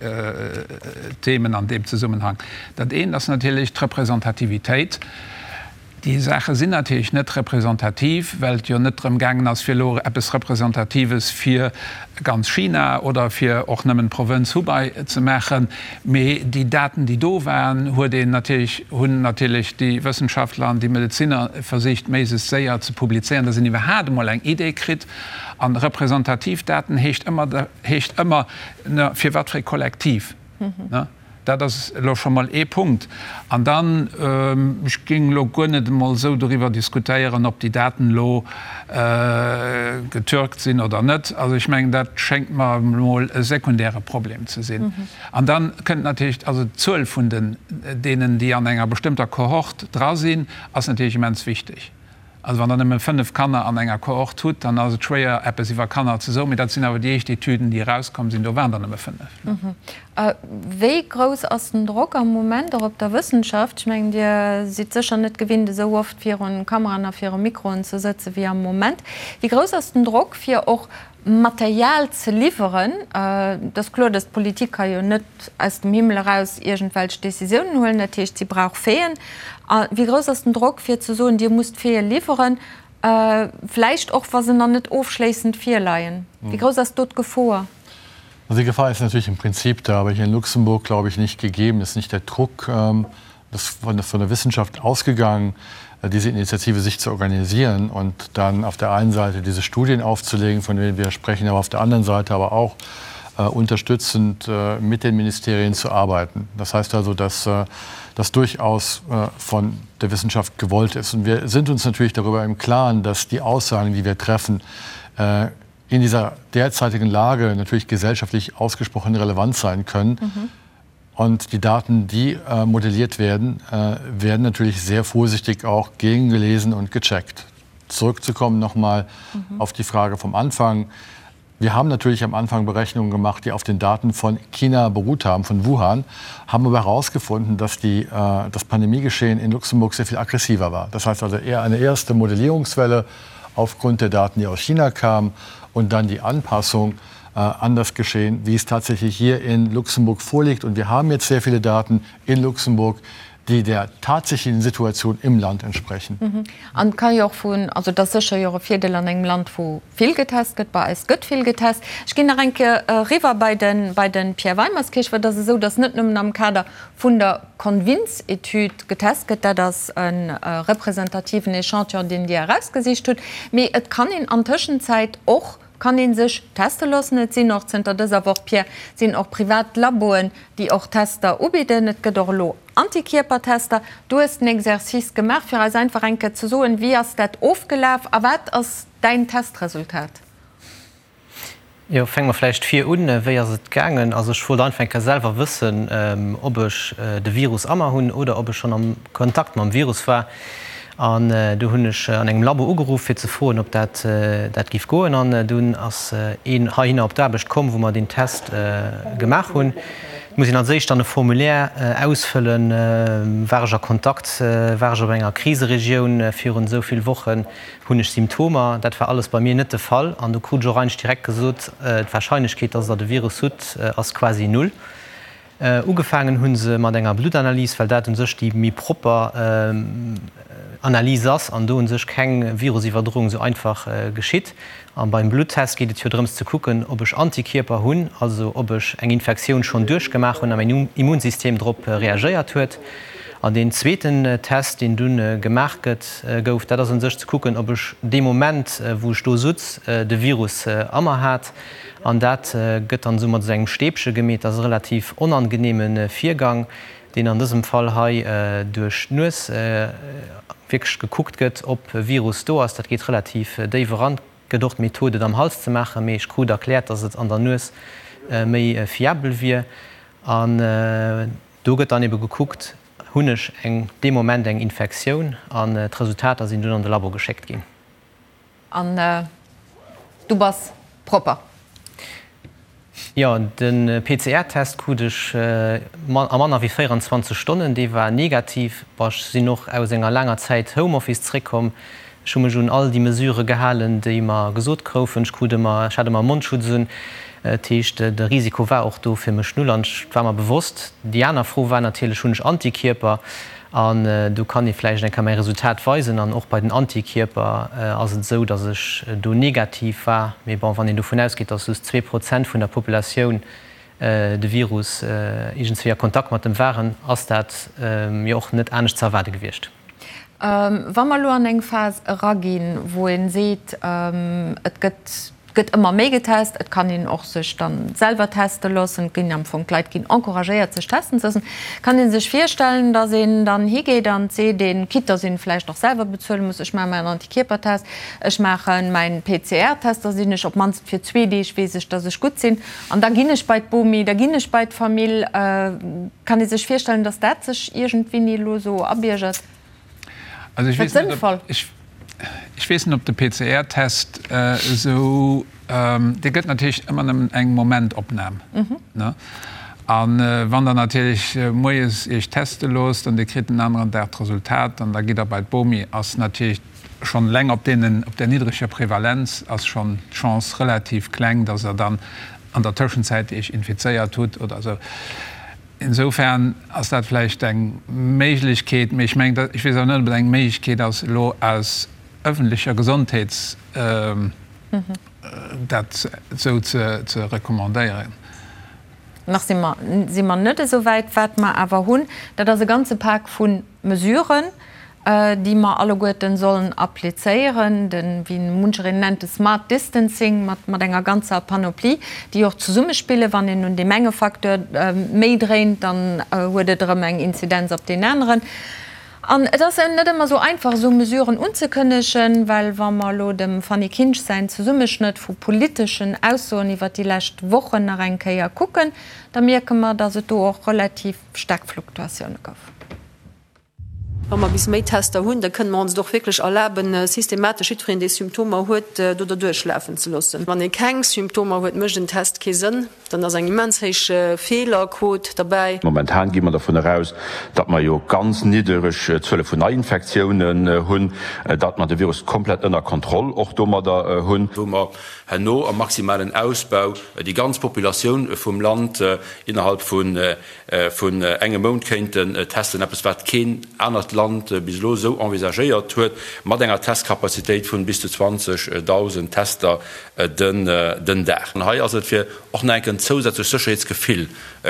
Themen an deem Zesummenhang. Dat eent ass natierlech d'Representativitéit. Déi Saache sinn natierlech net representativ, well et jo net drëm gaangen ass, fir elo eppes Representatives fir ganz China oder fir och nëmmen d'Provënz Hubei ze maachen. Mee déi Daten, déi do waren, huet een natierlech, hunn natierlech déi Wëssenschaftler an déi Medezinner versicht, méiglechst séier ze publizéieren, dass een iwwerhaapt emol eng Idee kritt. A representativ Daten heescht ëmmer, heescht ëmmer, fir wat fir e Kollektiv. Dat ass elo scho mol ee Punkt. An dann, ech géing elo guer net emol esou doriwwer diskutéieren, ob déi Daten elo getürkt sinn oder net. Also ech mengen, dat schéngt mer emol e sekundäre Problem ze sinn. An da kënnt natierlech, also d'Zuel vun den deenen, déi an enger bestëmmter Kohort dra sinn, ass natierlech immens wichteg. Also wann Der nëmme 5 Kanner an enger Kohort hutt, dann ass et schwéier, eppes iwwer Kanner ze soen. Mee dat sinn awer déi éischt Etüden, déi erauskomm sinn, do waren der nëmme 5. Wéi grouss ass den Drock am Moment och op der Wëssenschaft? Ech mengen, Dir sidd sécher net gewinnt, esou oft virun Kameraen a viru Mikroen ze sëtze wéi am Moment. Wéi grouss ass den Drock, fir och Material ze liwweren? Et ass kloer, datt d'Politik ka jo net aus dem Himmel eraus iergendwelch Décisiounen huelen. Dat heescht, si brauch Faiten. A wéi grouss ass den Drock, fir ze soen, Dir musst Faite liwweren, vläicht och wa se nach net ofschléissend virleien? Wéi grouss ass do d'Gefor? Also die Gefahr ist natürlich im Prinzip da, aber hier in Luxemburg, glaube ich, nicht gegeben. Es ist nicht der Druck das von, von der Wissenschaft ausgegangen, äh, diese Initiative sich zu organisieren und dann auf der einen Seite diese Studien aufzulegen, von denen wir sprechen, aber auf der anderen Seite aber auch äh, unterstützend mit den Ministerien zu arbeiten. Das heißt also, dass das durchaus von der Wissenschaft gewollt ist. Und wir sind uns natürlich darüber im Klaren, dass die Aussagen, die wir treffen, in dieser derzeitigen Lage natürlich gesellschaftlich ausgesprochen relevant sein können. Mhm. Und die Daten, die äh, modelliert werden, äh, werden natürlich sehr vorsichtig auch gegengelesen und gecheckt. Zurückzukommen nochmal mhm. auf die Frage vom Anfang. Wir haben natürlich am Anfang Berechnungen gemacht, die auf den Daten von China beruht haben, von Wuhan, haben aber herausgefunden, dass die, äh, das Pandemiegeschehen in Luxemburg sehr viel aggressiver war. Das heißt also eher eine erste Modellierungswelle aufgrund der Daten, die aus China kamen und dann die Anpassung äh, an das Geschehen, wie es tatsächlich hier in Luxemburg vorliegt. Und wir haben jetzt sehr viele Daten in Luxemburg, déi der tatsächlichen Situation im Land entsprechen. An et ka jo och vun, also et ass sécher jo och e Virdeel an engem Land, wou vill getest gëtt, bei eis gëtt vill getest. Ech ginn nach eng Kéier eriwwer bei de bei de Pierre Weimerskirch, well et ass esou, datt net nëmmen am Kader vun der Convins-Etüd getest gëtt, dat ass e representativen Echantillon, deen Dir erausgesicht hutt, mee et kann een an Tëschenzäit och kann ee sech teste loossen. Et sinn och zënter dëser Woch, Pierre, sinn och privat Laboen, déi och Tester ubidden. Et gëtt och elo Antikierpertester. Du hues den Exercice gemaach, fir eis einfach eng Kéier ze soen, wéi ass dat ofgelaf a wat ass däin Testresultat? Jo, fänke mer vläicht vir un. Wéi ass et gaangen? Also ech wollt einfach eng Kéier selwer wëssen, ob ech de Virus a mer hunn oder ob ech schonn am Kontakt mam Virus war. An du hunn ech an engem Labo ugeruff, fir ze froen, ob dat dat giff goen. An dunn ass een heihinner op d'Aarbecht komm, wou mer deen Test gemaach hunn. Et muss een als éischt dann e Formulaire ausfëllen, War ech a Kontakt, war ech op enger Kriseregioun virun esou vill Wochen, hunn ech Symptomer? Dat war alles bei mir net de Fall. An du krut ech och eigentlech direkt gesot, d'Warscheinlechkeet, dass Der de Virus hutt, ass quasi null. Ugefaangen hu se mat enger Bluttanalys, well dat u sech déi méi propper Analys ass an do u sech keng Virusiwwerdroung esou einfach geschitt. A beim Bluttest geet et jo drëms ze kucken, ob ech Antikierper hunn, also ob ech eng Infektioun schonn duerchgemaach hunn a mäin Immunsystem drop reagéiert huet. An deen zweeten Test, deen dunn gemaach gëtt, gouf, dat ass u sech ze kucken, ob ech dee Moment, wou ech do sutz, de Virus a mer hat. An dat gëtt dann esou mat esou engem Stäbche gemeet. Dat ass e relativ onangeneeme Virgang, deen an dësem Fall hei duerch d'Nues wierklech gekuckt gëtt, ob e Virus do ass. Dat geet relativ déif eran. Et gëtt och d'Method, et am Hals ze maachen, mee ech krut erkläert, dass et an der Nues méi fiabel wier. An do gëtt dann ebe gekuckt, Hunn ech eng dee Moment eng Infektioun? An d'Resultater sinn dunn an de Labo geschéckt ginn. An du bass propper? Jo, de PCR-Test krut ech a manner wéi 24 Stonnen. Dee war negativ. Bon, ech sinn och aus enger laanger Zäit Homeoffice zréckkomm. Ech hu mech un all déi Mesurë gehalen, déi mer gesot groufen. Ech krut ëmmer, ech hat ëmmer e Mondschutz un. Dat heescht, de Risiko war och do fir mech null an et war mer bewosst. Déi aner Fro war natierlech, Hunn ech Antikierper? An do kann ee vläicht eng Kéier mäi Resultat weisen. An och bei den Antikierper ass et esou, datt ech do negativ war. Mee bon, wann een dovun ausgeet, datt just 2% vun der Populatioun de Virus iergendswéi a Kontakt mat dem waren, ass dat jo och net anescht ze erwaarde gewiescht. Wa mer elo an eng Phas eraginn, wou ee seet, et gëtt Et gëtt ëmmer méi getest, et kann een och sech dann selwer teste loossen, et ginn am Fong, d'Leit ginn encouragéiert sech testen ze loossen. Kann ee sech virstellen, datt een dann higeet an seet een, quitte datt een vläicht och selwer bezuele muss, ech maache mäin Antikierpertest, ech maache mäin PCR-Test, da sinn ech op d'mannst fir zwee Deeg weess ech, datt ech gutt sinn an da ginn ech bei d'Bomi, da ginn ech bei d'Famill. Kann ee sech virstellen, datt dat sech iergendwéini elo esou abiergert? Also ech weess net, ob, ech, ech weess net, ob de PCR-Test esou, dee gëtt natierlech ëmmer nëmmen eng Momentopnam, ne? A wann Der natierlech moies Iech teste loosst an Dir kritt den aneren Dag d'Resultat an da gitt Der bei d'Bomi, ass natierlech schonn eleng op deenen, op där niddreger Prevalenz ass schonn d'Chance relativ kleng, dass Der dann an der Tëschenzäit Iech infizéiert hutt oder esou. Insofern ass dat vläicht eng Méiglechkeet, mee ech mengen, ech weess awer net, ob et eng Méiglechkeet ass, elo aus öffentlecher Gesondheets dat esou ze recommandéieren. Nach si mer, si mer net esou wäit. Wat mer awer hunn, dat ass e ganze Pak vu Mesuren. déi mer alleguerten sollen applizéieren, de, wéi munchereen nennt, de smart distancing mat, mat enger ganzer Panoplie, déi och zesummespillen. Wann een un deem enge Facteur méi dréint, dann huet et erëm eng Inzidenz op deen aneren. An et ass net ëmmer esou einfach, esou Mesuren unzekënnegen, well wa mer elo dem Fanny Kinsch säin Zesummeschnëtt vu politeschen Aussoen iwwert déi lescht Wochen nach eng Kéier kucken, da mierke mer, datt et do och relativ staark Fluktuatioune gouf. Wa mer bis méi Tester hunn, da kënne mer ons et och wierklech erlaben, systematesch jiddwereen, dee Symptomer huet, do derduerch lafen ze loossen. Wann ee keng Symptomer huet, mécht en Test kee Sënn. Dann ass eng immens héich Feelerquot derbäi. Momentan gi mer dervun eraus, datt mer jo ganz niddereg Zuele vun Neiinfektiounen hunn, datt mer de Virus komplett ënner Kontroll och domadder hunn. Wou mer herno am maximalen Ausbau déi ganz Populatioun vum Land innerhalb vun vun engem Mount kéinten testen, eppes wat keen anert Land bis elo esou envisagéiert huet, mat enger Testkapazitéit vun bis zu 20.000 Tester den Dag. An hei ass et fir och nach eng Kéier en zousätzlecht Sécherheetsgefill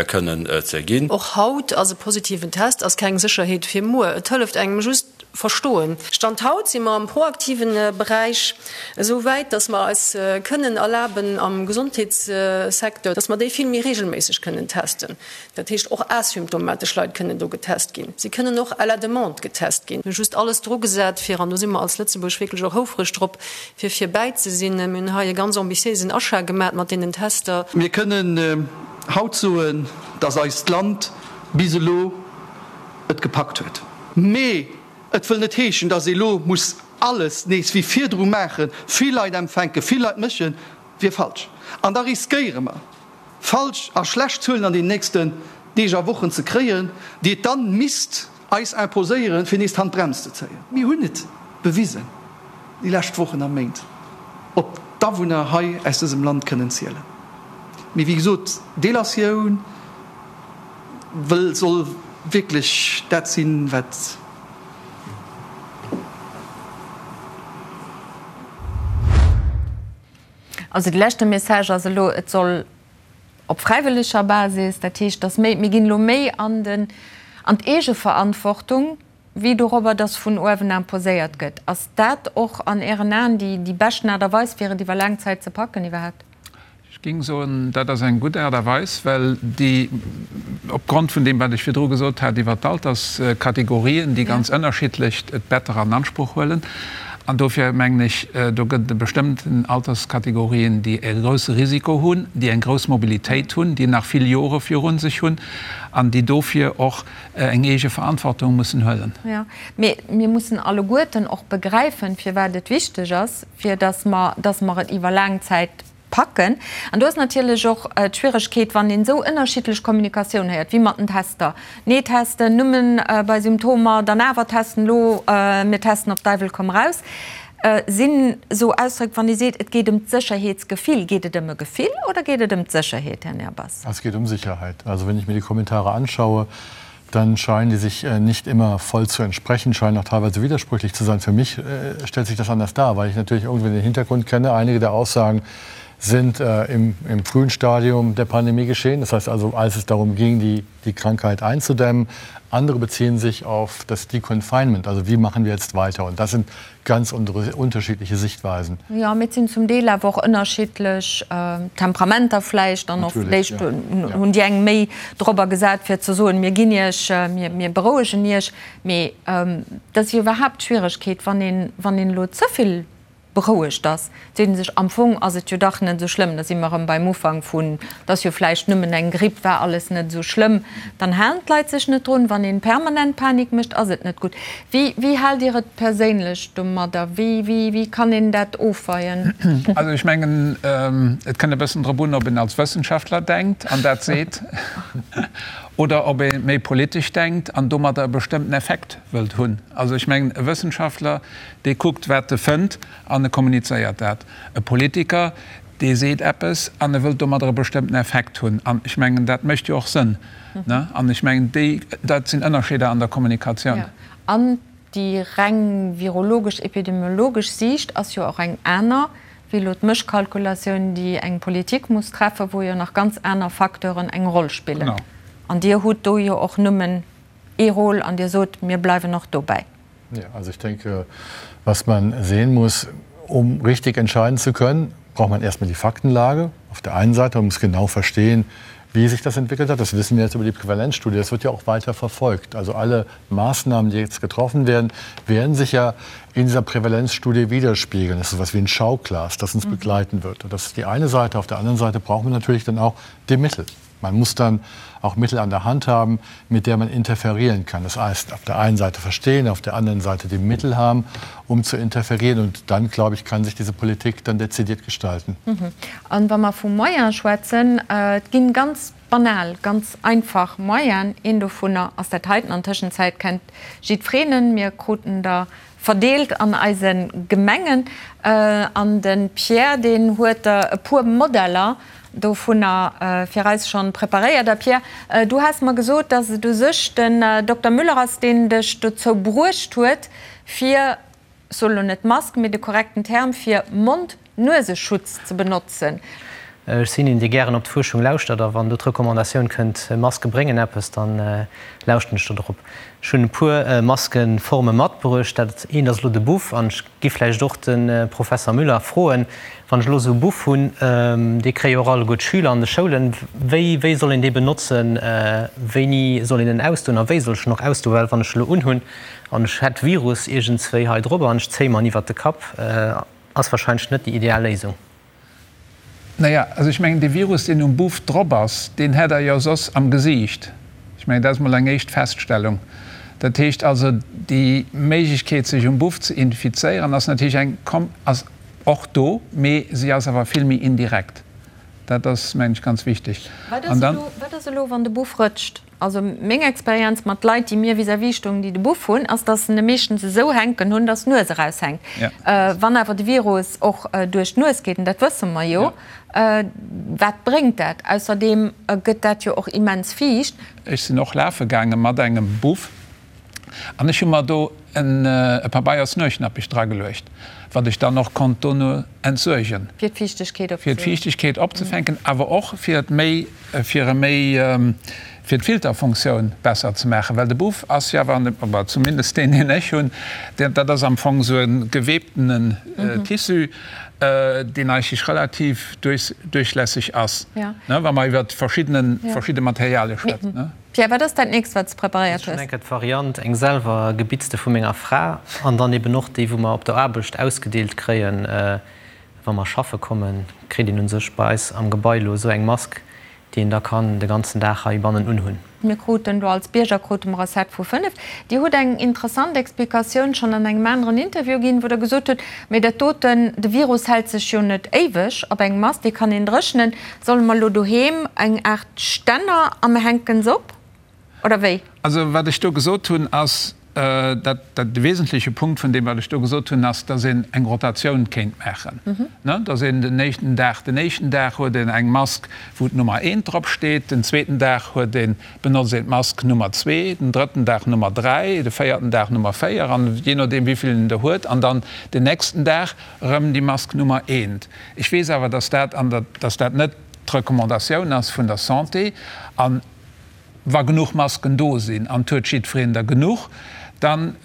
kënnen ze ginn. Och haut ass e positiven Test ass keng Sécherheet fir muer. Et hëlleft engem just verstoen. Stand haut si mer am proaktiven Beräich esou wäit, dass mer eis kënnen erlaben am Gesondheetssecteur, dass mer déi vill méi regelméisseg kënnen testen. Dat heescht, och asymptomatesch Leit kënnen do getest ginn. Si kënnen och à la demande getest ginn. Mir hu just alles drugesat, fir, an do si mer als Lëtzebuerg wierklech och houfreg drop, fir virbäi ze sinn. Mir hunn hei e ganz ambitiéisen Achat gemat mat deenen Tester. Mir kënnen haut soen, dass eist Land bis elo et gepackt huet. Mee et wëll net heeschen, dass ee lo muss alles nees wéi virdru maachen, vill Leit empfänken, vill Leit mëschen, wier falsch. An da riskéiere mer, falsch a schlecht Zuelen an den nächsten Deeg a Wochen ze kréien, déi et dann misst eis imposéieren, fir nees d'Handbrems ze zéien. Mir hunn et bewisen déi lescht Wochen a Méint, op d'Awunner hei aus dësem Land kënnen zielen. Mee wéi gesot, Delatioun, Wëll soll wierklech dat sinn, wat. Also de leschte Message ass elo, et soll op fräiwëlleger Basis, dat heescht, dass méi, mir ginn elo méi an den, an d'Eegeverantwortung wéi dorobber, dass vun uewen imposéiert gëtt. Ass dat och an Ären Aen déi, déi beschten Aart a Weis, fir et iwwer laang Zäit ze packen iwwerhaapt? Ech géing soen, dat ass eng gutt Aart a Weis, well déi, opgrond vun deem, wat ech virdru gesot hat iwwert d'Alterskategorien, déi ganz ënnerschiddlech d'Better an Ansproch huelen. An dofir mengen ech, do gëtt et bestëmmten Alterskategorien, déi e grousse Risiko hunn, déi eng grouss Mobilitéit hunn, déi nach vill Jore viru sech hunn an déi dofir och eng eege Verantwortung mussen huelen. Jo, mee mir mussen alleguerten och begräifen, firwat et wichteg ass, fir datt mer, datt mer et iwwer laang Zäit packen. An do ass natierlech och d'Schwieregkeet, wann een esou ënnerschiddlech Kommunikatioun héiert, wéi mat den Tester, Nee testen, nëmmen bei Symptomer, dann awer testen, elo mir testen op Deiwel komm raus, sinn esou Ausdréck, wann ee seet, et geet ëm d'Sécherheetsgefill. Geet et ëm e Gefill oder geet et ëm d'Sécherheet, Här Nehrbass? Es geht um Sicherheit. Also wenn ich mir die Kommentare anschaue, dann scheinen die sich nicht immer voll zu entsprechen, scheinen auch teilweise widersprüchlich zu sein. Für mich stellt sich das anders dar, weil ich natürlich irgendwie den Hintergrund kenne. Einige der Aussagen sind äh, im, im frühen Stadium der Pandemie geschehen. Das heißt also, als es darum ging, die, die Krankheit einzudämmen. Andere beziehen sich auf das Deconfinement, also wie machen wir jetzt weiter? Und das sind ganz unterschiedliche Sichtweisen. Jo, mee et sinn zum Deel awer och ënnerschiddlech Temperamenter vläicht dann och. Vläicht hunn déi eng méi dorobber gesat, fir ze soen, mir ginn Iech, mir berouegen Iech. Mee dat ass jo iwwerhaapt d'Schwieregkeet, wann een, wann een elo ze vill berouegt ass, seet ee sech, am Fong ass et jo dach net esou schlëmm. Da si mer erëm beim Ufank vun, et ass jo vläicht nëmmen eng Gripp, war alles net esou schlëmm. Dann halen d'Leit sech net drun. Wann een permanent Panik mécht, ass et net gutt. Wéi, wéi haalt Dir et perséinlech domadder? Wéi, wéi, wéi kann een dat ofweien? Also ech mengen, et kënnt e bëssen drop un, ob een als Wëssenschaftler denkt an dat seet oder ob ee méi politesch denkt an domadder e bestëmmten Effekt wëllt hunn. Also ech mengen, e Wëssenschaftler, Dee kuckt, wat e fënnt, an e kommunizéiert dat. E Politiker, dee seet eppes an e wëllt domadder e bestëmmten Effekt hunn. An ech mengen, dat mécht jo och Sënn. An ech mengen, déi, dat sinn Ënnerscheeder an der Kommunikatioun. Jo, an déi reng virologesch-epidemiologesch Siicht ass jo och eng aner wéi elo d'Mëschkalkulatioun, déi eng Politik muss treffen, wou jo nach ganz aner Facteuren eng Roll spillen. An Dir hutt do jo och nëmmen ee Rôle an Dir sot, mir bleiwen och dobäi. Ja, also ich denke, was man sehen muss, um richtig entscheiden zu können, braucht man erstmal die Faktenlage. Auf der einen Seite man muss genau verstehen, wie sich das entwickelt hat. Das wissen wir jetzt über die Prävalenzstudie. Das wird ja auch weiter verfolgt. Also alle Maßnahmen, die jetzt getroffen werden, werden sich ja in dieser Prävalenzstudie widerspiegeln. Das ist etwas wie ein Schauglas, das uns mhm. begleiten wird. Und das ist die eine Seite. Auf der anderen Seite brauchen wir natürlich dann auch die Mittel. Man muss dann auch Mittel an der Hand haben, mit der man interferieren kann. Das heißt, auf der einen Seite verstehen, auf der anderen Seite die Mittel haben, um zu interferieren. Und dann, glaube ich, kann sich diese Politik dann dezidiert gestalten. Mhm. An wa mer vu Moyen schwätzen, äh, et ginn ganz banal, ganz einfach Moyen. Een dovunner ass dat heiten. An Tëschenzäit kennt jiddfreen en. Mir kruten der verdeelt an eise Gemengen. An de Pierre, deen huet der e puer Modeller dovunner fir eis schonn preparéiert. A Pierre, du has mer gesot, dass et u sech den Dokter Müller ass, deen dech dozou bruecht huet, fir, ech soen elo net Mask, mee de korrekten Term fir Mond-Nueseschutz ze benotzen. Ech sinn een, dee gären op d'Fuerschung lauschtert, a wann do d'Recommandatioun kënnt, Maske bréngen eppes, da lauschten ech do drop. Ech hunn e puer Maskeforme matbruecht. Dat eent ass elo de Buff, an ech gi vläicht och de Professer Müller froen, wann ech elo esou e Buff hunn, dee kréie jo och alleguer d'Schüler an de Schoulen, wéi wéi soll een dee benotzen, wéini soll een en ausdoen a wéi soll ech en och ausdoen? Well wann ech e lo unhunn an ech hätt Virus iergendswéi hei drop an ech zéie mer en iwwert de Kapp, ass wahrscheinlech net déi ideal Léisung. Naja, also ech mengen, dee Virus, deen um Buff drop ass, deen hätt Der jo soss am Gesiicht. Ech mengen, dat ass mol eng éischt Feststellung. Dat heescht also, déi Méiglechkeet, sech um Buff ze infizéieren, ass natierlech eng, ass och do, mee si ass awer vill méi indirekt. Dat ass, mengen ech, ganz wichteg. Wat ass elo, wann de Buff rëtscht? Also meng Experienz mat Leit, déi mir vis-à-vis stoungen, déi de Buff hunn, ass, dass se en meeschtens esou hänken hunn, dass d'Nues eraushänkt. Wann awer de Virus och duerch d'Nues geet, an dat wësse mer jo, wat bréngt dat? Ausserdeem gëtt dat jo och immens fiicht. Ech sinn och lafe gaange mat engem Buff An ech hu mer do e Pabeiers-Nuechnappech drageluecht, wat ech dann och konnt dono entsuergen. Fir d'Fiichtegkeet opzefänken. Fir d'Fiichtegkeet opzefänken, awer och fir et méi, fir e méi, fir d'Filterfunktioun besser ze maachen. Well de Buff ass jo awer, oder zumindest deen, deen ech hunn, dat ass am Fong esou e gewebtenen Tissu, deen eigentlech relativ duerchlässeg ass, wa mer iwwer verschidde Materialie schwätzen. Pierre, wat ass dat nächst wat s de preparéiert hues? Ech hunn eng Kéier d'Variant, eng selwer gebitzte vu menger Fra an dann eben och déi wou mer op der Aarbecht ausgedeelt kréien, wa mer schaffe kommen, kritt een u sech bei eis am Gebai elo esou eng Mask, déi een da kann de ganzen Dag heibannen unhunn. Mir kruten do als Bierger krute mer e Set vu 5. Dir hutt eng interessant Explikatioun schonn an engem aneren Interview ginn, wou Der gesot hutt, mee dat doten, de Virus hält sech jo net éiweg op engem Mast, dee kann een dréchnen. Solle mer elo doheem eng Aart Stänner a mer hänken se op, oder wéi? Also wat ech do gesot hunn ass, dat de wesentleche Punkt vun deem wat ech do gesot hunn ass, datt een eng Rotatioun kéint maachen, datt een den éischten Dag, den éischten Dag huet een eng Mask wou d'Nummer eent drop steet, den zweeten Dag huet een, benotzt een d'Mask Nummer zwee, den drëtten Dag Nummer dräi, de véierten Dag Nummer véier an jee nodeem wéivill een der huet an dann den nächsten Dag erëm déi Mask Nummer eent. Ech weess awer, dass dat an der, dass dat net d'Recommandatioun ass vun der Santé. A wa genuch Masken do sinn, an et huet jiddwereen der genuch, dann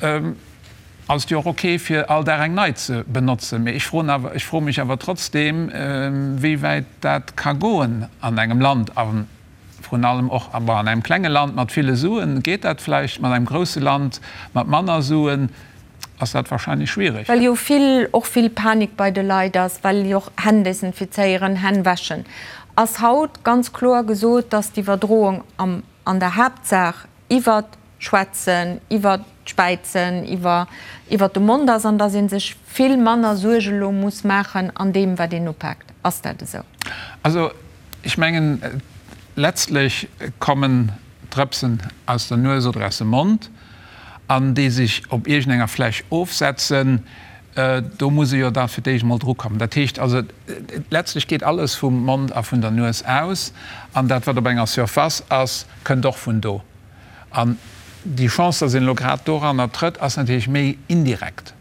ass et jo och ok, fir all Dag eng nei ze benotzen. Mee ech froen awer, ech froe mech awer trotzdeem, wéi wäit dat ka goen an engem Land, a vrun allem och an engem klenge Land mat ville Suen geet dat vläicht, mat engem grousse Land mat manner Suen ass dat wahrscheinlech schwierig. Well jo vill, och vill Panik bei de Leit ass, well jo och Hänn desinfizéieren, Hänn wäschen, ass haut ganz kloer gesot, dass d'Iwwerdroung am, an der Haaptsaach iwwert d'Schwätzen, iwwert d'Späizen, iwwer, iwwert de Mond ass an dass ee sech vill manner Suerge lo muss maachen an deem, wat een upaakt. Ass dat esou? Also ech mengen, letztlech kommen Drëpsen aus der Nues oder aus dem Mond an déi sech op iergendenger Fläch ofsetzen, do muss e jo da fir d'éischt emol drukommen. Dat heescht also, letztlech geet alles vum Mond a vun der Nues aus an dat, wat op enger Surface ass, kënnt och vun do. An déi Chance, dass een elo grad doranner trëtt, ass natierlech méi indirekt.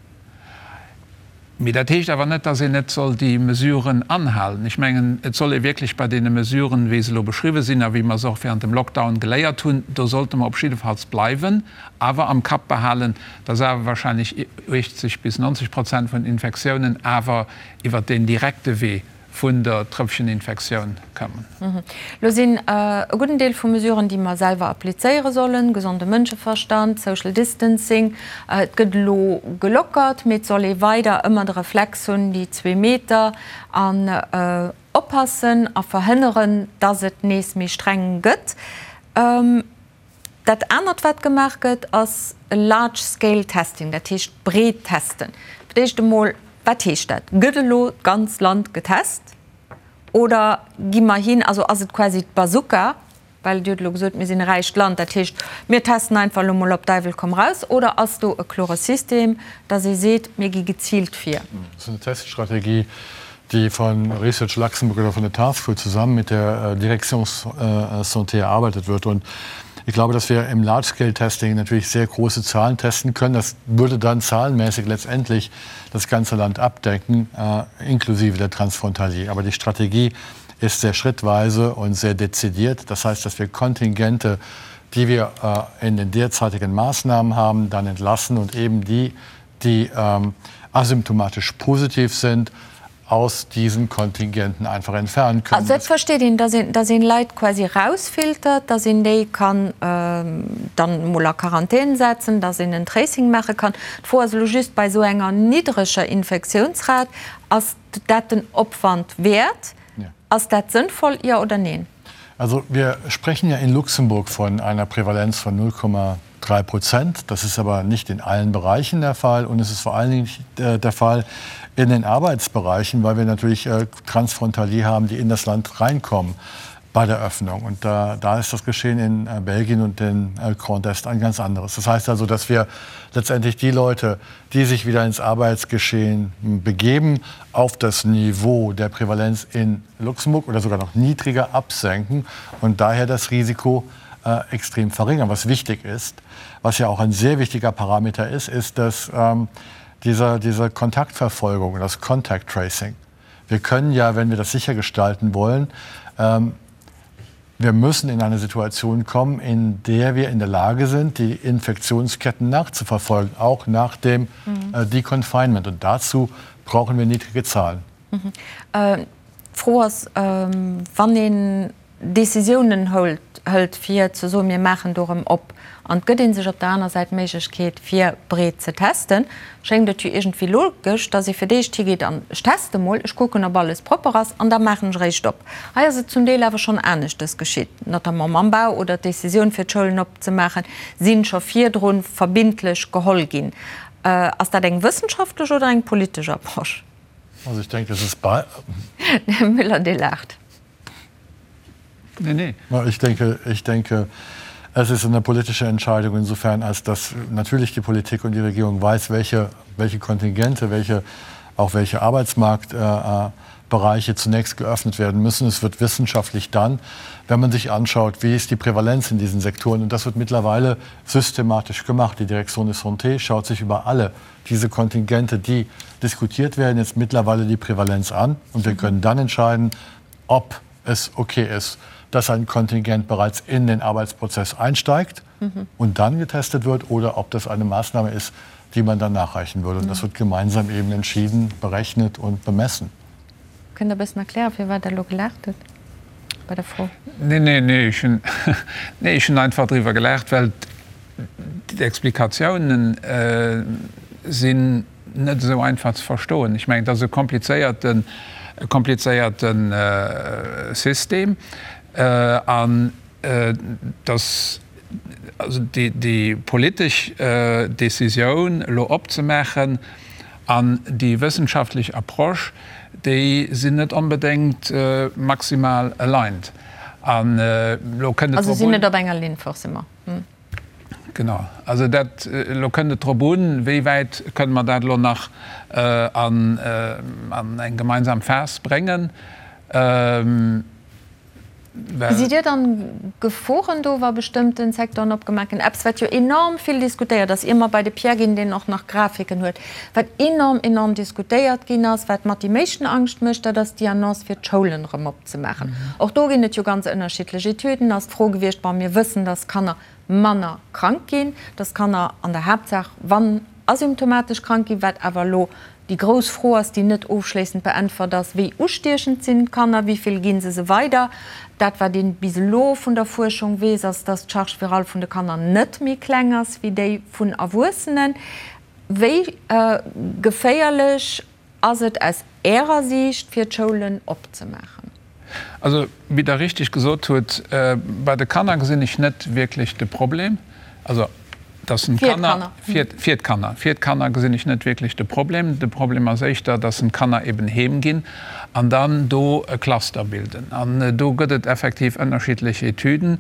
Mee dat heescht awer net, dass een net soll déi Mesuren anhalen. Ech mengen, et soll ee wierklech bei deene Mesuren, wéi se elo beschriwwen sinn a wéi mer se och während dem Lockdown geléiert hunn, do sollte mer op jiddefalls bleiwen, awer am Kapp behalen, dass awer wahrscheinlech 80 bis 90 Prozent vun den Infektiounen awer iwwert deen direkte Wee vun der Trëpfcheninfektioun kommen. Lo sinn e gudden Deel vu Mesuren, déi mer selwer applizéiere sollen, gesonde Mënscheverstand, Social Distancing. Et gëtt elo gelockert, mee et soll ee weider ëmmer de Reflex hunn, déi zwee Meter, an oppassen a verhënneren, dass et nees méi streng gëtt. Dat anert, wat gemaach gëtt, ass e large scale testing, dat heescht breet testen. Fir d'éischt emol, wat heescht dat? Gëtt elo d'ganz Land getest oder gi mer hin, also ass et quasi d'Bazooka, well Dir hutt elo gesot, mir sinn e räicht Land, dat heescht, mir testen einfach elo mol op Däiwel komm raus, oder ass do e klore System, datt ee seet, mir gi geziilt vir? Dat ass eng Teststrategie, die von Research Luxemburg oder von der Taskforce zusammen mit der äh, Direktion äh, Santé erarbeitet wird. Und ich glaube, dass wir im Large-Scale-Testing natürlich sehr große Zahlen testen können. Das würde dann zahlenmäßig letztendlich das ganze Land abdecken, äh, inklusive der Transfrontalier. Aber die Strategie ist sehr schrittweise und sehr dezidiert. Das heißt, dass wir Kontingente, die wir äh, in den derzeitigen Maßnahmen haben, dann entlassen und eben die, die ähm, asymptomatisch positiv sind, aus diesen Kontingenten einfach entfernen können. Also et versteet een, dass een, dass een Leit quasi erausfiltert, dass een déi kann dann emol a Quarantän setzen, dass een en Tracing maache kann. D'Fro ass elo just, bei esou enger niddreger Infektiounsrat, ass dat den Opwand wäert? Ass dat sënnvoll, jo oder neen? Also wir sprechen ja in Luxemburg von einer Prävalenz von 0,3 Prozent. Das ist aber nicht in allen Bereichen der Fall und es ist vor allen Dingen nicht äh, der Fall in den Arbeitsbereichen, weil wir natürlich äh, Transfrontalier haben, die in das Land reinkommen bei der Öffnung. Und da, da ist das Geschehen in äh, Belgien und in äh, Grand Est ein ganz anderes. Das heißt also, dass wir letztendlich die Leute, die sich wieder ins Arbeitsgeschehen begeben, auf das Niveau der Prävalenz in Luxemburg oder sogar noch niedriger absenken und daher das Risiko äh, extrem verringern. Was wichtig ist, was ja auch ein sehr wichtiger Parameter ist, ist, dass ähm, dieser, diese Kontaktverfolgung, das Contact Tracing, wir können ja, wenn wir das sicher gestalten wollen, ähm, wir müssen in eine Situation kommen, in der wir in der Lage sind, die Infektionsketten nachzuverfolgen, auch nach dem mhm. äh, Deconfinement. Und dazu brauchen wir niedrige Zahlen. Mhm. Äh, D'Fro ass, wann een Décisiounen hëlt, fir ze soen, mir maachen do erëm op, an et gëtt ee sech op der aner Säit d'Méiglechkeet, fir breet ze testen, schéngt et jo iergendwéi logesch, datt ee fir d'éischt higeet an ech teste mol, ech kucken, ob alles propper ass, an da maachen ech eréischt op. Hei ass et zum Deel awer schonn aneschtes geschitt, notamment mam Bau oder d'Décisioun, fir d'Schoulen opzemaachen, si scho virdru verbindlech geholl ginn. Ass dat eng wëssenschaftlech oder eng politesch Approche? Also ich denke, es ist bei. Här Müller, Dir laacht. Nee, nee. Ich denke, ich denke, es ist eine politische Entscheidung insofern, als dass natürlich die Politik und die Regierung weiß, welche, welche Kontingente, welche, auch welche Arbeitsmarktbereiche äh, äh zunächst geöffnet werden müssen. Es wird wissenschaftlich dann, wenn man sich anschaut, wie ist die Prävalenz in diesen Sektoren. Und das wird mittlerweile systematisch gemacht. Die Direktion de Santé schaut sich über alle diese Kontingente, die diskutiert werden, jetzt mittlerweile die Prävalenz an. Und wir können dann entscheiden, ob es okay ist, dass ein Kontingent bereits in den Arbeitsprozess einsteigt mhm. und dann getestet wird oder ob das eine Maßnahme ist, die man dann nachreichen würde. Und das mhm. wird gemeinsam eben entschieden, berechnet und bemessen. Kënnt Der e bëssen erklären, firwat Der elo gelaacht hutt bei der Fro? Nee, nee, nee, ech hunn, nee, ech hunn einfach driwwer gelaacht, well d'Explikatiounen sinn net esou einfach ze verstoen. Ech mengen, et ass e komplizéierten, e komplizéierte System an dass also déi, déi politesch Décisioun elo opzemaachen an déi wëssenschaftlech Approche, déi sinn net onbedéngt maximal aligned. An elo kënnt et Also drop sinn un. net op enger Linn forcément. Genau. Also dat, elo kënnt et drop un, wéi wäit kënne mer dat elo nach an eng gemeinsam Phas bréngen. Well. Gesitt Dir dann Geforen do, wa bestëmmten Secteuren opgemaach ginn? Eppes, wat jo enorm vill diskutéiert ass, ier mer bei de Pierre ginn, deen och nach Grafiken huet, wat enorm, enorm diskutéiert ginn ass, wat mat déi meeschten Angscht mécht, dat ass déi Annonce, fir d'Schoulen erëm opzemaachen. Och do ginn et jo ganz ënnerschiddlech Etüden, ass d'Fro gewiescht, bon, mir wëssen, dass Kanner manner krank ginn, dass Kanner an der Haaptsaach, wann asymptomatesch krank ginn, wat awer elo déi grouss Fro ass, déi net ofschléissend beäntwert ass, Wéi ustiechend sinn d'Kanner, wéi vill gi se se weider? Dat, wat ee bis elo vun der Fuerschung weess, ass, dass d'Charge virale vun de Kanner net méi kleng ass wéi déi vun Erwuessenen. Wéi geféierlech Ass et aus Ärer Siicht fir d'Schoulen opzemaachen? Also, wéi Der richtig gesot hutt, bei de Kanner gesinn ech net wierklech de Problem. Also, dass en d'Kanner, fir d'Kanner, fir d'Kanner gesinn ech net wierklech de Problem. De Problem ass éischter, dass en d'Kanner eben heem ginn an dann do e Cluster bilden. An do gëtt et effektiv ënnerschiddlech Etüden,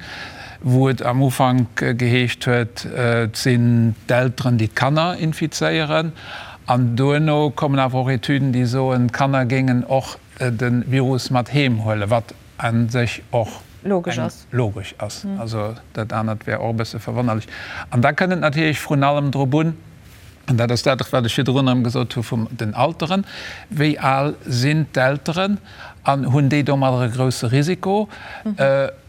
wou et am Ufank geheescht huet, et sinn d'Elteren, déi d'Kanner infizéieren. An duerno kommen awer och Etüden, déi soen, d'Kanner géingen och de Virus mat heem huelen, wat a sech och logesch ass. Also dat anert wär och e bësse verwonnerlech. An da kënnt et natierlech vrun allem drop un, an dat ass dat, wat ech virdrun erëm gesot hu vum den Alteren, Wéi al sinn d'Elteren an hunn déi domadder e grousse Risiko?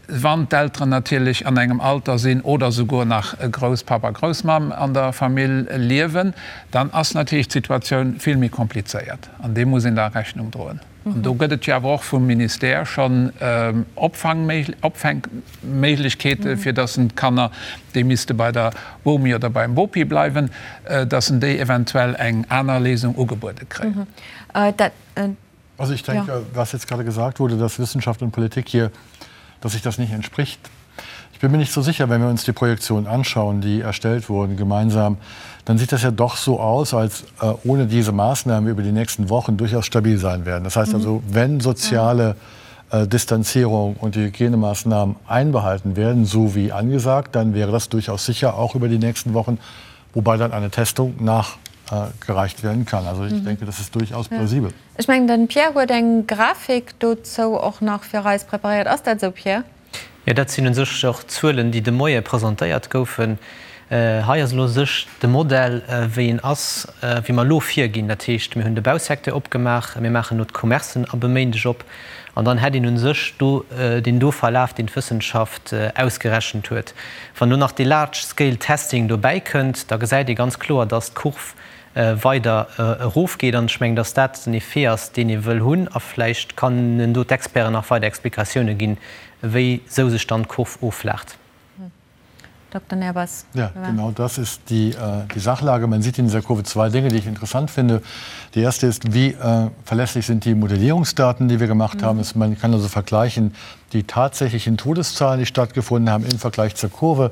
Wann d'Elteren natierlech an engem Alter sinn oder souguer nach e Grousspapp a Groussmamm an der Famill liewen, dann ass natierlech d'Situatioun vill méi komplizéiert an deem muss een da Rechnung droen. An do gëtt et jo awer och vum Ministère schonn Opfänkméiglechkeete fir dass en d'Kanner, déi misste bei der Bomi oder beim Bopi bleiwen, dass en déi eventuell eng aner Léisung ugebuede kréien. Also ich denke, ja. was jetzt gerade gesagt wurde, dass Wissenschaft und Politik hier, dass sich das nicht entspricht. Ich bin mir nicht so sicher, wenn wir uns die Projektionen anschauen, die erstellt wurden gemeinsam, dann sieht das ja doch so aus, als äh, ohne diese Maßnahmen über die nächsten Wochen durchaus stabil sein werden. Das heißt mhm. also, wenn soziale äh, Distanzierung und die Hygienemaßnahmen einbehalten werden, so wie angesagt, dann wäre das durchaus sicher auch über die nächsten Wochen, wobei dann eine Testung nachgereicht werden kann. Also ich mhm. denke, das ist durchaus plausibel. Ech mengen den Pierre huet eng Grafik dozou och nach fir eis preparéiert. Ass dat esou Pierre? Jo, dat sinn u sech och d'Zuelen, déi de Moie presentéiert goufen. Hei ass elo u sech de Modell, wéi en ass, wéi mer elo virginn. Dat heescht, mir hunn de Bausecteur opgemaach, mir maachen elo d'Commercen ab e Méindeg op an dann hätt een u sech do deen do Verlaf, deen d'Wëssenschaft ausgerechent huet. Wann elo nach dee Large Scale Testing dobäi kënnt, da gesäit ee ganz kloer, dass d'Kurv weider erofgeet. An ech mengen, dass dat den Effet ass, deen ee wëll hunn. A vläicht kënnen do d'Experten nach weider Explikatioune ginn, wéi sou sech dann d'Kurv offlaacht. Dokter Nehrbass. Ja, genau das ist die, die Sachlage. Man sieht in dieser Kurve zwei Dinge, die ich interessant finde. Die erste ist, wie äh, verlässlich sind die Modellierungsdaten, die wir gemacht mhm. haben. Es, man kann also vergleichen die tatsächlichen Todeszahlen, die stattgefunden haben, im Vergleich zur Kurve.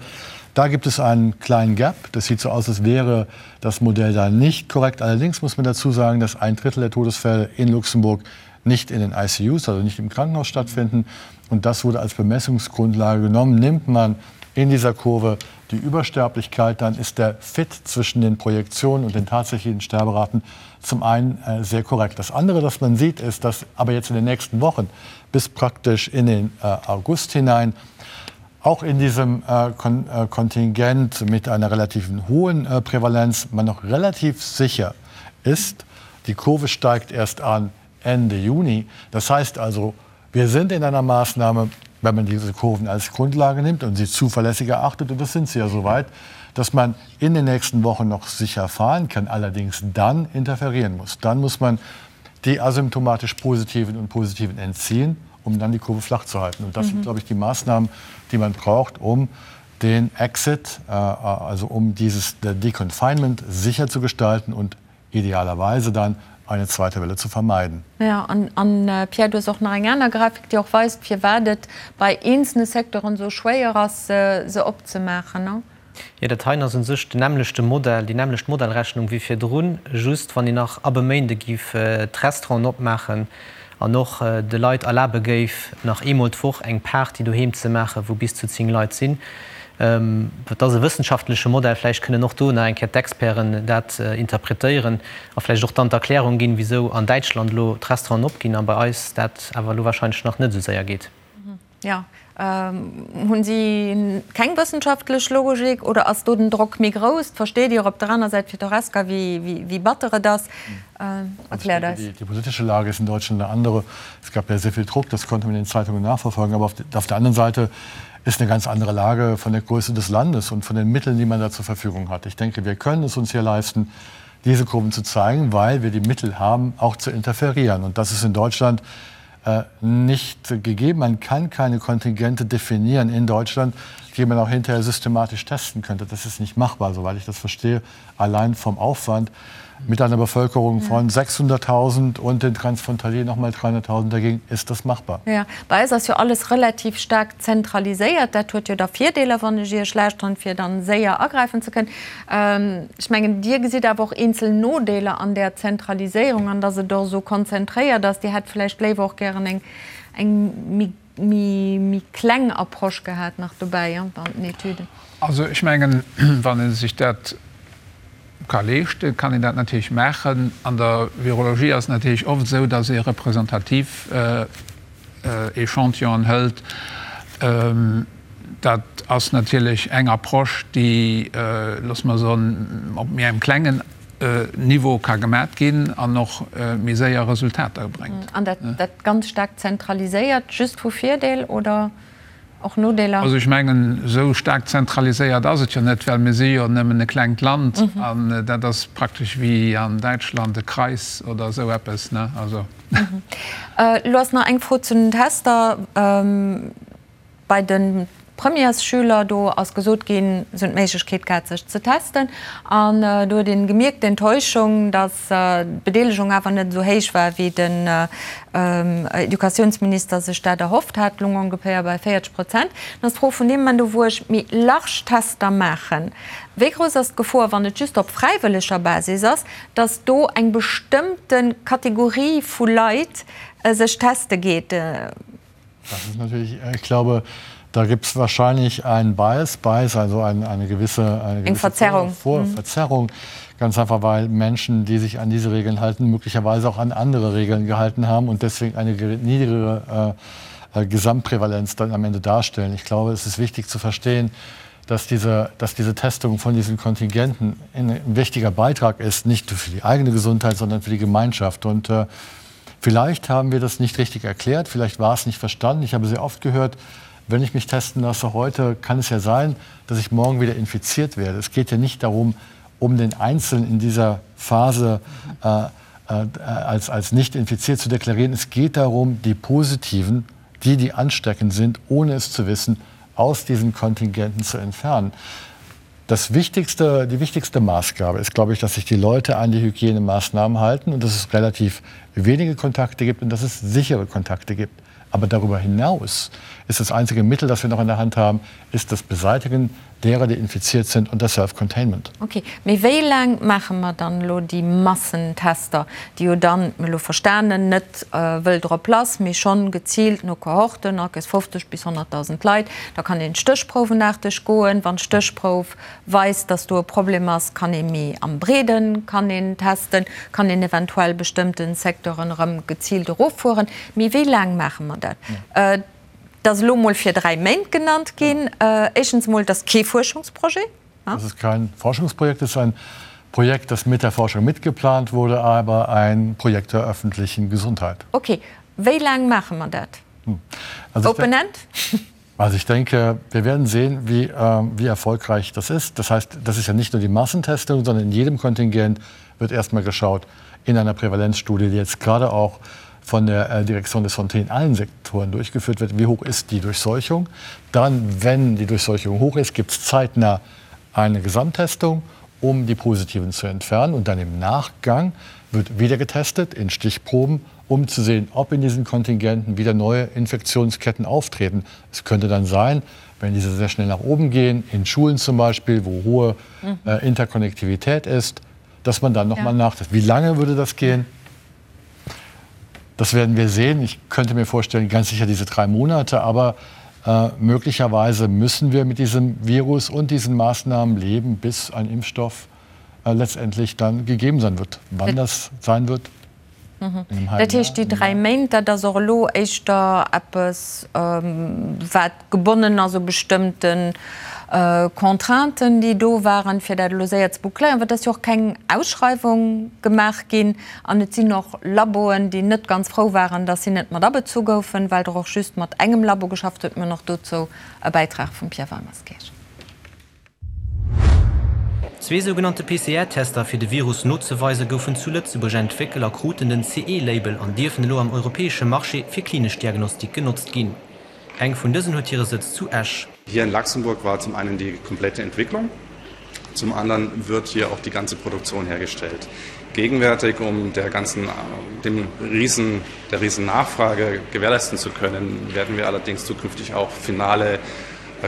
Da gibt es einen kleinen Gap. Das sieht so aus, als wäre das Modell da nicht korrekt. Allerdings muss man dazu sagen, dass ein Drittel der Todesfälle in Luxemburg nicht in den ICUs, also nicht im Krankenhaus stattfinden. Und das wurde als Bemessungsgrundlage genommen. Nimmt man in dieser Kurve die Übersterblichkeit, dann ist der Fit zwischen den Projektionen und den tatsächlichen Sterberaten zum einen äh, sehr korrekt. Das andere, das man sieht, ist, dass aber jetzt in den nächsten Wochen bis praktisch in den äh, August hinein auch in diesem äh, Kon äh, Kontingent mit einer relativen hohen äh, Prävalenz man noch relativ sicher ist. Die Kurve steigt erst an Ende Juni. Das heißt also, wir sind in einer Maßnahme, wenn man diese Kurven als Grundlage nimmt und sie zuverlässig erachtet, und das sind sie ja soweit, dass man in den nächsten Wochen noch sicher fahren kann, allerdings dann interferieren muss. Dann muss man die asymptomatisch positiven und positiven entziehen, um dann die Kurve flach zu halten. Und das mhm. sind, glaube ich, die Maßnahmen, die man braucht, um den Exit, äh, also um dieses Deconfinement sicher zu gestalten und idealerweise dann eine zweite Welle zu vermeiden. Ja, an, an äh, Pierre, du hues och nach eng aner Grafik, déi och weist, firwat et bei eenzelne Secteuren esou schwéier ass, se opzemaachen, ne? Jo, dat heien ass u sech den nämmlechte Modell, déi nämmlecht Modellrechnung wéi virdrun, just wann een nach ab e Méinde géif d'Restauranten opmaachen an och de Leit erlabe géif, nach eemol d'Woch eng Party doheem ze maachen, wou bis zu 10 Leit sinn. Dat ass e wëssenschaftleche Modell, vläicht kënnen och do nach eng Kéier d'Experten dat interpretéieren a vläicht och dann d'Erklärung ginn, wisou an Däitschland elo d'Restauranten opginn a bei eis dat awer elo warscheinlech nach net esou séier geet. Jo. Hunn si keng wëssenschaftlech Logik oder ass do den Drock méi grouss? Versteet Dir op der aner Säit fir d'Horesca, wéi batter et ass? Erkläert eis. Die politische Lage ist in Deutschland eine andere. Es gab ja sehr viel Druck, das konnte man in den Zeitungen nachverfolgen. Aber auf der anderen Seite ist eine ganz andere Lage von der Größe des Landes und von den Mitteln, die man da zur Verfügung hat. Ich denke, wir können es uns hier leisten, diese Kurven zu zeigen, weil wir die Mittel haben, auch zu interferieren. Und das ist in Deutschland äh, nicht gegeben. Man kann keine Kontingente definieren in Deutschland, die man auch hinterher systematisch testen könnte. Das ist nicht machbar, soweit ich das verstehe, allein vom Aufwand mit einer Bevölkerung von 600.000 und den Transfrontalier noch mal 300.000 dagegen ist das machbar. Ja, bei eis ass jo alles relativ staark zentraliséiert. Dat huet jo da Virdeeler, wann ech Iech lauschteren, fir dann séier agräifen ze kënnen. Ech mengen, Dir gesitt awer och eenzel Nodeeler an där Zentraliséierung an datt et och esou konzentréiert ass. Dir hätt vläicht léiwer och gären eng eng méi méi kleng Approche gehat nach dobäi an den Etüden. Also ech mengen, wann ee sech dat ka leeschten, kann een dat natierlech maachen. An der Virologie ass et natierlech oft esou, datt ee representativ Echantillonen hëlt. Dat ass natierlech eng Approche, déi, loosse mer soen, op méi engem klengen Niveau ka gemat ginn an och méi séier Resultater bréngt. An dat ganz staark zentraliséiert, just vu Virdeel oder och Nodeeler? Also ech mengen, esou staark zentraliséiert ass et jo net, well mir si jo nëmmen e klengt Land an dat ass praktesch wéi an Däitschland e Kreis oder esou eppes, ne? Also. Elo ass nach eng Fro zu den Tester. Bei de Premièresschüler, do ass gesot ginn, se hunn d'Méiglechkeet gehat, sech ze testen. An do huet een gemierkt, d'Enttäuschung, datt d'Bedeelegung awer net esou héich war, wéi den Educatiounsminister sech dat erhofft hat, lung ongeféier bei 40 Prozent. Dann ass d'Fro vun deem Moment u, wou ech méi large Tester maachen, wéi grouss ass d'Gefor, wann et just op fräiwëlleger Basis ass, datt do eng bestëmmte Kategorie vu Leit sech teste geet? Das ist natürlich, ich glaube, da gibt es wahrscheinlich einen Bias, Bias also eine, eine gewisse, eine gewisse Verzerrung. Vor mhm. Verzerrung. Ganz einfach, weil Menschen, die sich an diese Regeln halten, möglicherweise auch an andere Regeln gehalten haben und deswegen eine niedrigere äh, äh, Gesamtprävalenz dann am Ende darstellen. Ich glaube, es ist wichtig zu verstehen, dass diese, dass diese Testung von diesen Kontingenten ein wichtiger Beitrag ist, nicht für die eigene Gesundheit, sondern für die Gemeinschaft. Und äh, Vielleicht haben wir das nicht richtig erklärt, vielleicht war es nicht verstanden. Ich habe sehr oft gehört, wenn ich mich testen lasse heute, kann es ja sein, dass ich morgen wieder infiziert werde. Es geht ja nicht darum, um den Einzelnen in dieser Phase äh, äh, als, als nicht infiziert zu deklarieren. Es geht darum, die Positiven, die, die ansteckend sind, ohne es zu wissen, aus diesen Kontingenten zu entfernen. Das wichtigste, die wichtigste Maßgabe ist, glaube ich, dass sich die Leute an die Hygienemaßnahmen halten und dass es relativ wenige Kontakte gibt und dass es sichere Kontakte gibt. Aber darüber hinaus ist das einzige Mittel, das wir noch in der Hand haben, ist das Beseitigen derer, die infiziert sind und das Self-Containment. Okay, mee wéi laang maache mer dann elo déi Massentester, déi jo dann, mir elo verstanen, net wëll drop lass, mee schonn geziilt no Kohorten, akes 50 bis 100.000 Leit. Da kann een stéchprouwenaarteg goen. Wann d'Stéchprouf weist, dass do e Problem ass, kann ee méi am Breeden kann een testen, kann een eventuell bestëmmte Secteuren erëm geziilt eroffueren. Mee wéi laang maache mer dat? Et ass elo mol fir 3 Méint genannt ginn. Éischtens emol, et ass kee Fuerschungsprojet. Das ist kein Forschungsprojekt, es ist ein Projekt, das mit der Forschung mitgeplant wurde, aber ein Projekt der öffentlichen Gesundheit. Okay, wéi laang maache mer dat? Open End? Also ich denke, wir werden sehen, wie, äh, wie erfolgreich das ist. Das heißt, das ist ja nicht nur die Massentestung, sondern in jedem Kontingent wird erstmal geschaut in einer Prävalenzstudie, die jetzt gerade auch von der äh, Direktion des Santé in allen Sektoren durchgeführt wird. Wie hoch ist die Durchseuchung? Dann, wenn die Durchseuchung hoch ist, gibt es zeitnah eine Gesamttestung, um die Positiven zu entfernen. Und dann im Nachgang wird wieder getestet in Stichproben, um zu sehen, ob in diesen Kontingenten wieder neue Infektionsketten auftreten. Es könnte dann sein, wenn diese sehr schnell nach oben gehen, in Schulen zum Beispiel, wo hohe mhm. äh, Interkonnektivität ist, dass man dann noch ja. mal nachtestet. Wie lange würde das gehen? Das werden wir sehen. Ich könnte mir vorstellen, ganz sicher diese drei Monate, aber äh, möglicherweise müssen wir mit diesem Virus und diesen Maßnahmen leben, bis ein Impfstoff äh, letztendlich dann gegeben sein wird. Wann das sein wird? Dat heescht, déi 3 Méint, dat ass och elo éischter eppes, wat gebonnen ass u bestëmmte Contrainten, déi do waren, fir dat elo séier ze boucléieren, well et ass jo och keng Ausschreiwung gemaach ginn an et sinn och Laboen, déi net ganz frou waren, datt si net mat abezu goufen, well der och just mat engem Labo geschafft huet. Mir hunn och dozou e Bäitrag vum Pierre Weimerskirch. Zwee sougenannte PCR-Tester fir de Virus nozeweise goufen zu Lëtzebuerg entwéckelt a kruten den CE-Label an dierfen elo am europäesche Marché fir klinesch Diagnostik genotzt ginn. Eng vun dësen huet hire Sëtz zu Esch. Hier in Luxemburg war zum einen die komplette Entwicklung, zum anderen wird hier auch die ganze Produktion hergestellt. Gegenwärtig, um der ganzen, dem riesen, der riesen Nachfrage gewährleisten zu können, werden wir allerdings zukünftig auch finale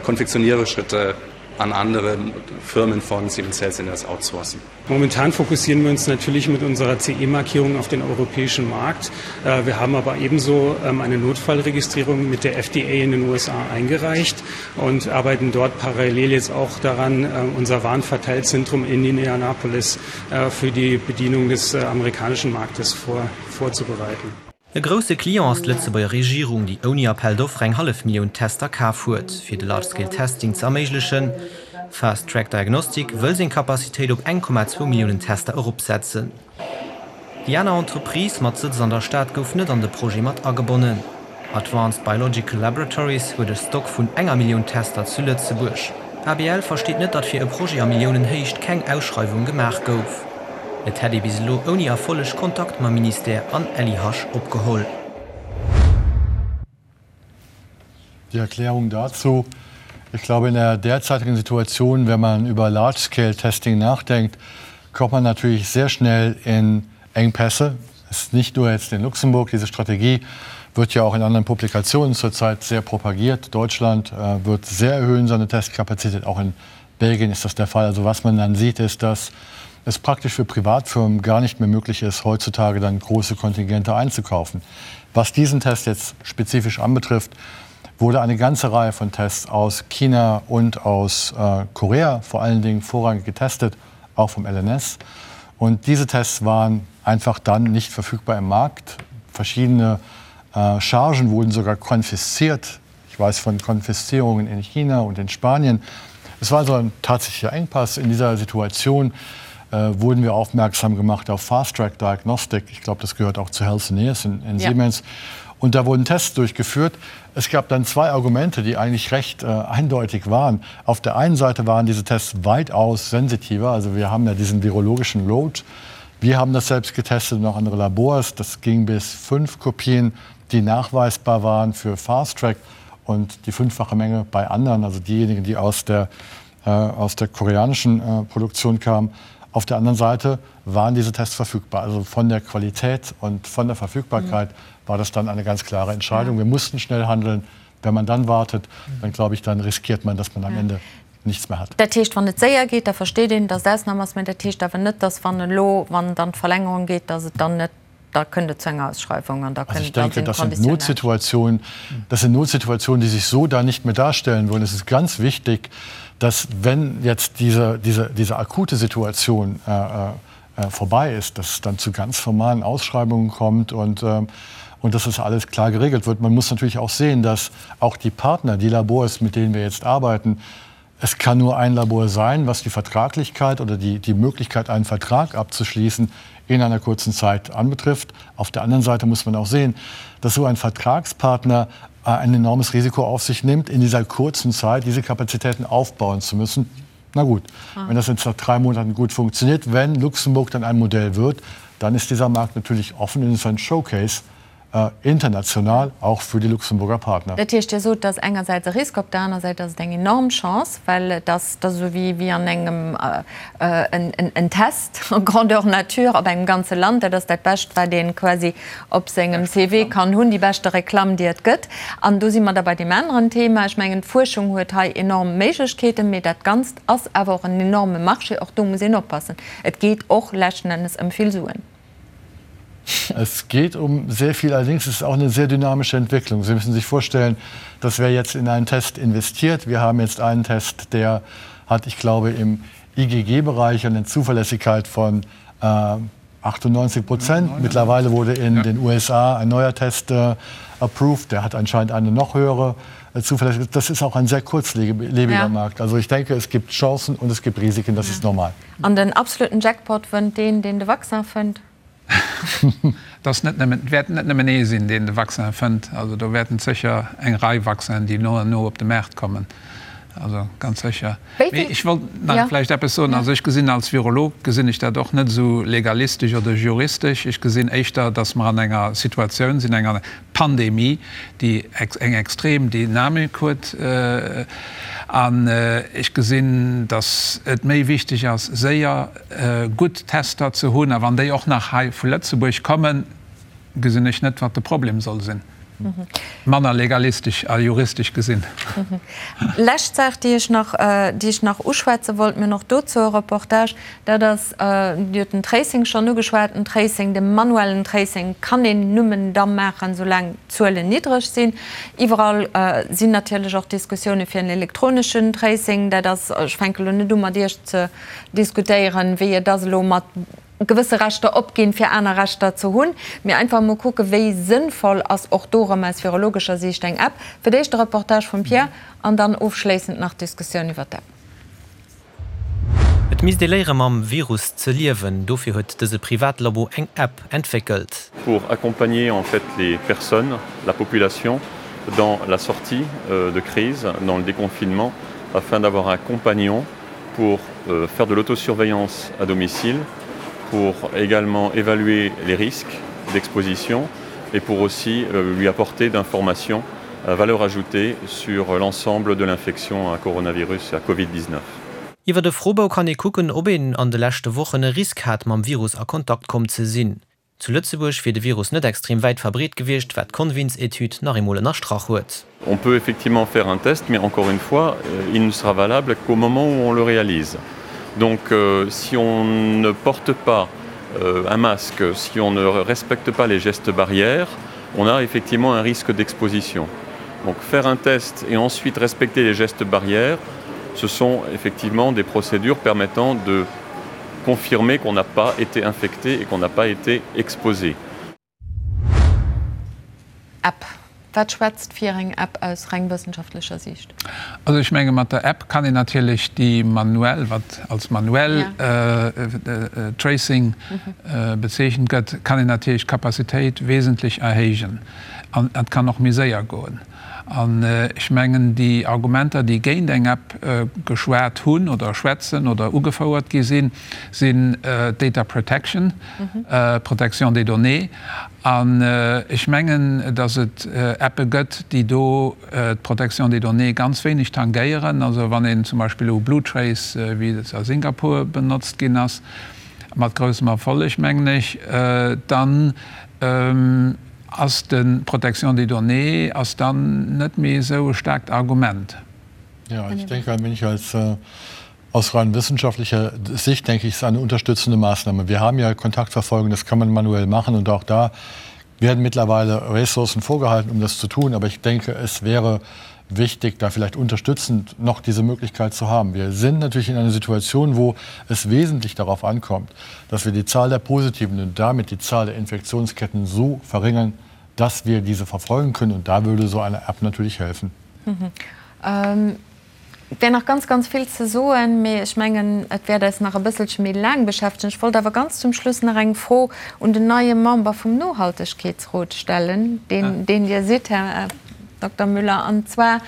Konfektionierschritte an andere Firmen von Siemens Healthineers outsourcen. Momentan fokussieren wir uns natürlich mit unserer CE-Markierung auf den europäischen Markt. Wir haben aber ebenso eine Notfallregistrierung mit der FDA in den USA eingereicht und arbeiten dort parallel jetzt auch daran, unser Warenverteilzentrum in Indianapolis für die Bedienung des amerikanischen Marktes vor, vorzubereiten. E grousse Client ass d'Lëtzebuerger Regierung, déi ouni Appel d'offres eng hallef Millioun Tester kaf huet, fir de Large Scale Testing ze erméiglechen. Fast Track Diagnostic wëll seng Capacitéit op 1,2 Milliounen Tester eropsetzen. Déi aner Entreprise mat Sëtz an der Stad gouf net an de Projet mat agebonnen. Advanced Biological Laboratories huet e Stock vun enger Millioun Tester zu Lëtzebuerg. ABL versteet net, datt fir e Projet a Milliounenhéicht keng Ausschreiwung gemaach gouf. Et hätt ee bis elo ouni Erfolleg Kontakt mam Ministère an LIH opgeholl. Die Erklärung dazu, Ich glaube, in der derzeitigen Situation, wenn man über Large-Scale-Testing nachdenkt, kommt man natürlich sehr schnell in Engpässe. Es ist nicht nur jetzt in Luxemburg, diese Strategie wird ja auch in anderen Publikationen zurzeit sehr propagiert. Deutschland äh, wird sehr erhöhen seine Testkapazität, auch in Belgien ist das der Fall. Also was man dann sieht, ist, dass es praktisch für Privatfirmen gar nicht mehr möglich ist, heutzutage dann große Kontingente einzukaufen. Was diesen Test jetzt spezifisch anbetrifft, wurde eine ganze Reihe von Tests aus China und aus äh, Korea vor allen Dingen vorrangig getestet, auch vom LNS. Und diese Tests waren einfach dann nicht verfügbar im Markt. Verschiedene äh, Chargen wurden sogar konfisziert. Ich weiß von Konfiszierungen in China und in Spanien. Es war so ein tatsächlicher Engpass in dieser Situation äh, wurden wir aufmerksam gemacht auf Fast Track Diagnostic. Ich glaube, das gehört auch zu Healthineers in, in ja. Siemens. Und da wurden Tests durchgeführt. Es gab dann zwei Argumente, die eigentlich recht äh, eindeutig waren. Auf der einen Seite waren diese Tests weitaus sensitiver. Also wir haben ja diesen virologischen Load. Wir haben das selbst getestet und auch andere Labors. Das ging bis fünf Kopien, die nachweisbar waren für Fast Track und die fünffache Menge bei anderen, also diejenigen, die aus der, äh, aus der koreanischen äh, Produktion kamen. Auf der anderen Seite waren diese Tests verfügbar. Also von der Qualität und von der Verfügbarkeit mhm. war das dann eine ganz klare Entscheidung. Ja. Wir mussten schnell handeln. Wenn man dann wartet, dann glaube ich, dann riskiert man, dass man am ja. Ende nichts mehr hat. Dat heescht, wann et séier geet, da versteet een, datt Ausnam ass, mä dat heescht awer net, datt wann elo, wann dann d'Verlängerung geet, datt et dann net, da kënnt et zu enger Ausschreiwung an da kënnt, Also ich denke, das sind Notsituationen, das sind Notsituationen, die sich so da nicht mehr darstellen würden. Es ist ganz wichtig, dass wenn jetzt diese, diese, diese akute Situation äh, äh, vorbei ist, dass es dann zu ganz formalen Ausschreibungen kommt und, äh, und dass das alles klar geregelt wird. Man muss natürlich auch sehen, dass auch die Partner, die Labors, mit denen wir jetzt arbeiten, es kann nur ein Labor sein, was die Vertraglichkeit oder die, die Möglichkeit, einen Vertrag abzuschließen, in einer kurzen Zeit anbetrifft. Auf der anderen Seite muss man auch sehen, dass so ein Vertragspartner äh, ein enormes Risiko auf sich nimmt, in dieser kurzen Zeit diese Kapazitäten aufbauen zu müssen. Na gut, ah. wenn das jetzt nach drei Monaten gut funktioniert, wenn Luxemburg dann ein Modell wird, dann ist dieser Markt natürlich offen und ist ein Showcase international, auch für die Luxemburger Partner. Dat heescht, Dir sot, et ass engersäits e Risk, op der aner Säit ass et eng enorm Chance, well et ass da sou wéi wéi an engem en Test grandeur nature op engem ganze Land. Dat ass dat Bescht, wat ee quasi op sengem CV kann hunn, déi beschte Reklamm, déi et gëtt. An do si mer da bei deem aneren Thema. Ech mengen, d'Fuerschung huet hei enorm Méiglechkeeten, mee dat Ganzt ass awer och en enorme Marché. Och do muss een oppassen. Et geet och leschten Ennes ëm vill Suen. Es geht um sehr viel, allerdings ist es auch eine sehr dynamische Entwicklung. Sie müssen sich vorstellen, dass wer jetzt in einen Test investiert, wir haben jetzt einen Test, der hat, ich glaube, im IgG-Bereich eine Zuverlässigkeit von äh, 98 Prozent. Mittlerweile wurde in ja. den USA ein neuer Test äh, approved. Der hat anscheinend eine noch höhere äh, Zuverlässigkeit. Das ist auch ein sehr kurzlebiger ja. Markt. Also ich denke, es gibt Chancen und es gibt Risiken. Das ja. ist normal. An den absoluten Jackpot wënnt deen, deen de Vaccin fënnt. Dass net nëmmen, et wäert net nëmmen ee sinn, deen de Vaccin fënnt. Also do wäerten sécher eng Rei Vaccinen, déi no an no op de Maart kommen. Also ganz sécher. Mee ech wollt nach vläicht eppes soen. Also ech gesinn als Virolog gesinn ech dat och net esou legalistesch oder juristesch. Ech gesinn éischter, dass mer an enger Situatioun sinn, enger Pandemie, déi eng extrem Dynamik huet. An ech gesinn, dass et méi wichteg ass, séier gutt Tester ze hunn. A wann déi och nach hei vu Lëtzebuerg kommen, gesinn ech net, wat de Problem soll sinn. Manner legalistesch a juristesch gesinn. Lescht Saach, déi ech nach, déi ech nach uschwätze wollt, mir hunn och dozou e Reportage, dat ass, Dir hutt den Tracing schonn ugeschwat, den Tracing, de manuellen Tracing kann een nëmmen da maachen, soulaang d'Zuelen niddreg sinn. Iwwerall sinn natierlech och Diskussioune fir en elektroneschen Tracing. Dat ass, ech fänke elo net u mat Iech ze diskutéieren, wéi et ass elo mat gewësse Rechter opginn, fir aner Rechter ze hunn, mee einfach emol kucken, wéi sënnvoll ass och do erëm aus virologescher Siicht eng App. Fir d'éischt de Reportage vum Pierre an dann ofschléissend nach d'Diskussioun iwwer d'App. Et misst ee léiere mam Virus ze liewen, dofir huet dëse Privatlabo eng App entwéckelt. Pour accompagner en fait les personnes, la population dans la sortie de crise, dans le déconfinement, afin d'avoir un compagnon pour faire de l'autosurveillance à domicile, pour également évaluer les risques d'exposition et pour aussi lui apporter d'informations à valeur ajoutée sur l'ensemble de l'infection à coronavirus et à Covid-19. Iwwer de Froebou kann ee kucken, ob een an de leschte Wochen e Risk hat, mam Virus a Kontakt komm ze sinn. Zu Lëtzebuerg wier de Virus net extrem wäit verbreet gewiescht, wat d'Convins-Etüd nach eemol ënnerstrach huet. On peut effectivement faire un test, mais encore une fois, il ne sera valable qu'au moment où on le réalise. Donc si on ne porte pas un masque, si on ne respecte pas les gestes barrières, on a effectivement un risque d'exposition. Donc faire un test et ensuite respecter les gestes barrières, ce sont effectivement des procédures permettant de confirmer qu'on n'a pas été infecté et qu'on n'a pas été exposé. App, Wat schwätzt fir eng App aus reng wëssenschaftlecher Siicht? Also ech menge mat der App kann een natierlech déi manuell, wat als manuell Tracing bezeechent gëtt, kann een natierlech d'Capacitéit wesentlech erhéijen an et kann och méi séier goen. An ech mengen, déi Argumenter, déi géint eng App geschwat hunn oder schwätzen oder ugefouert gi sinn, sinn d'Data Protection, Protection des données. An ech mengen, datt et Appe gëtt, déi do d'Protection des données ganz wéineg tangéieren. Also wann een zum Beispill elo BlueTrace, wéi et a Singapur benotzt ginn ass, mat groussem Erfolleg, mengen ech, dann Ass de Protection des données ass dann net méi esou e staarkt Argument. Ja, ich denke ein wenig als aus rein wissenschaftlicher Sicht denke ich, ist eine unterstützende Maßnahme. Wir haben ja Kontaktverfolgung, das kann man manuell machen und auch da werden mittlerweile Ressourcen vorgehalten, um das zu tun. Aber ich denke, es wäre wichtig, da vielleicht unterstützend noch diese Möglichkeit zu haben. Wir sind natürlich in einer Situation, wo es wesentlich darauf ankommt, dass wir die Zahl der Positiven und damit die Zahl der Infektionsketten so verringern, dass wir diese verfolgen können. Und da würde so eine App natürlich helfen. Mhm. Ähm Et wär nach ganz, ganz vill ze soen, mee ech mengen, et wäert eis nach e bësselche méi laang beschäftegen. Ech wollt awer ganz zum Schluss nach eng Fro un den neie Member vum Nohaltegkeetsrot stellen, deen, deen Dir sidd, Här Dokter Müller. An zwar,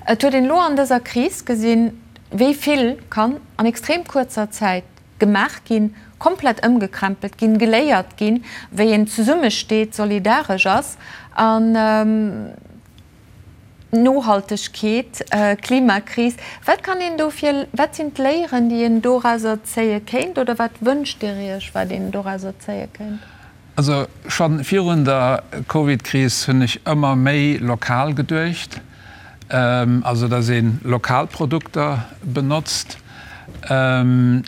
et huet een elo an dëser Kris gesinn, wéi vill kann an extrem kuerzer Zäit gemaach ginn, komplett ëmgekrempelt ginn, geléiert ginn, wéi een zesummesteet, solidaresch ass. An Nohaltegkeet, Klimakris, wat kann een do fir, wat sinn d'Léieren, déi een dorauser zéie kéint oder wat wënscht Dir Iech, wat een dorauser zéie kéint? Also scho virun der Covid-Kris hunn ech ëmmer méi lokal geduecht, also datt ee lokal Produkter benotzt. An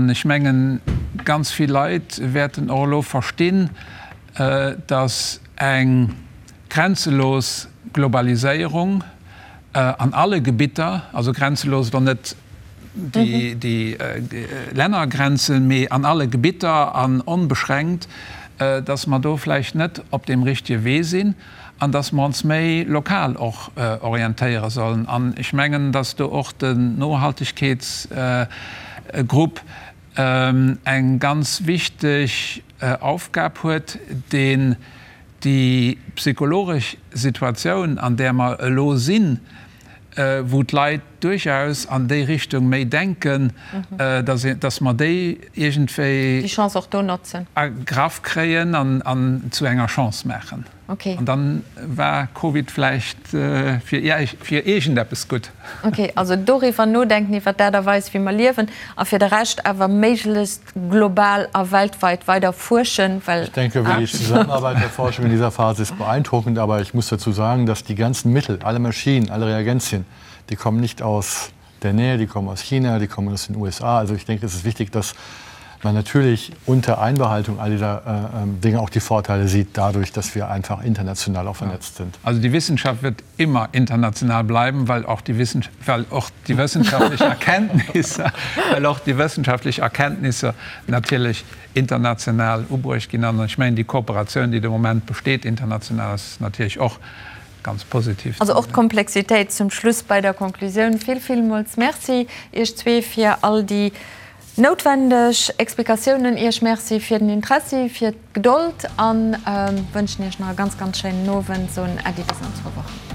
ech mengen, ganz vill Leit wäerten och elo verstinn, datt eng grenzelos Globaliséierung an alle Gebitter, also grenzelos elo net. déi Lännergrenzen, mee an alle Gebitter an onbeschränkt, dass mer do vläicht net op deem richtege Wee sinn an dass mer ons méi lokal och orientéiere sollen. An ech mengen, dass do och den Nohaltegkeetsgrupp eng ganz wichteg Aufgab huet, deen déi psychologesch Situatioun, an där mer elo sinn, wou d'Leit duerchaus an déi Richtung méi denken, dass mer déi iergendwéi Déi Chance och do notzen. Agraff kréien an zu enger Chance maachen. Okay. An dann war Covid vläicht fir iergendeppes gutt. Okay, also doriwwer nodenken, iwwer d'Aart a Weis, wéi mer liewen, a fir de Rescht awer méiglechst global a weltweit weider fuerschen, well. Ich denke, die Zusammenarbeit der Forschung in dieser Phase ist beeindruckend, aber ich muss dazu sagen, dass die ganzen Mittel, alle Maschinen, alle Reagenzien, die kommen nicht aus der Nähe, die kommen aus China, die kommen aus den USA. Also ich denke, es ist wichtig, dass man natürlich unter Einbehaltung all dieser äh, ähm, Dinge auch die Vorteile sieht, dadurch, dass wir einfach international auch vernetzt sind. Also die Wissenschaft wird immer international bleiben, weil auch die, Wissens weil auch die wissenschaftliche Erkenntnisse, weil auch die wissenschaftliche Erkenntnisse natürlich international ubruecht ginn. An ech mengen, déi Kooperatioun, déi de Moment besteet international, ass natierlech och ganz positiv. Also och d'Komplexitéit zum Schluss bei der Konklusioun. Vill, villmools Merci Iech zwee fir all déi noutwendeg Explikatiounen. Iech Merci fir den Interessi, fir d'Gedold a wënschen Iech nach e ganz, ganz schéinen Owend. Soen Äddi bis an zwou Wochen.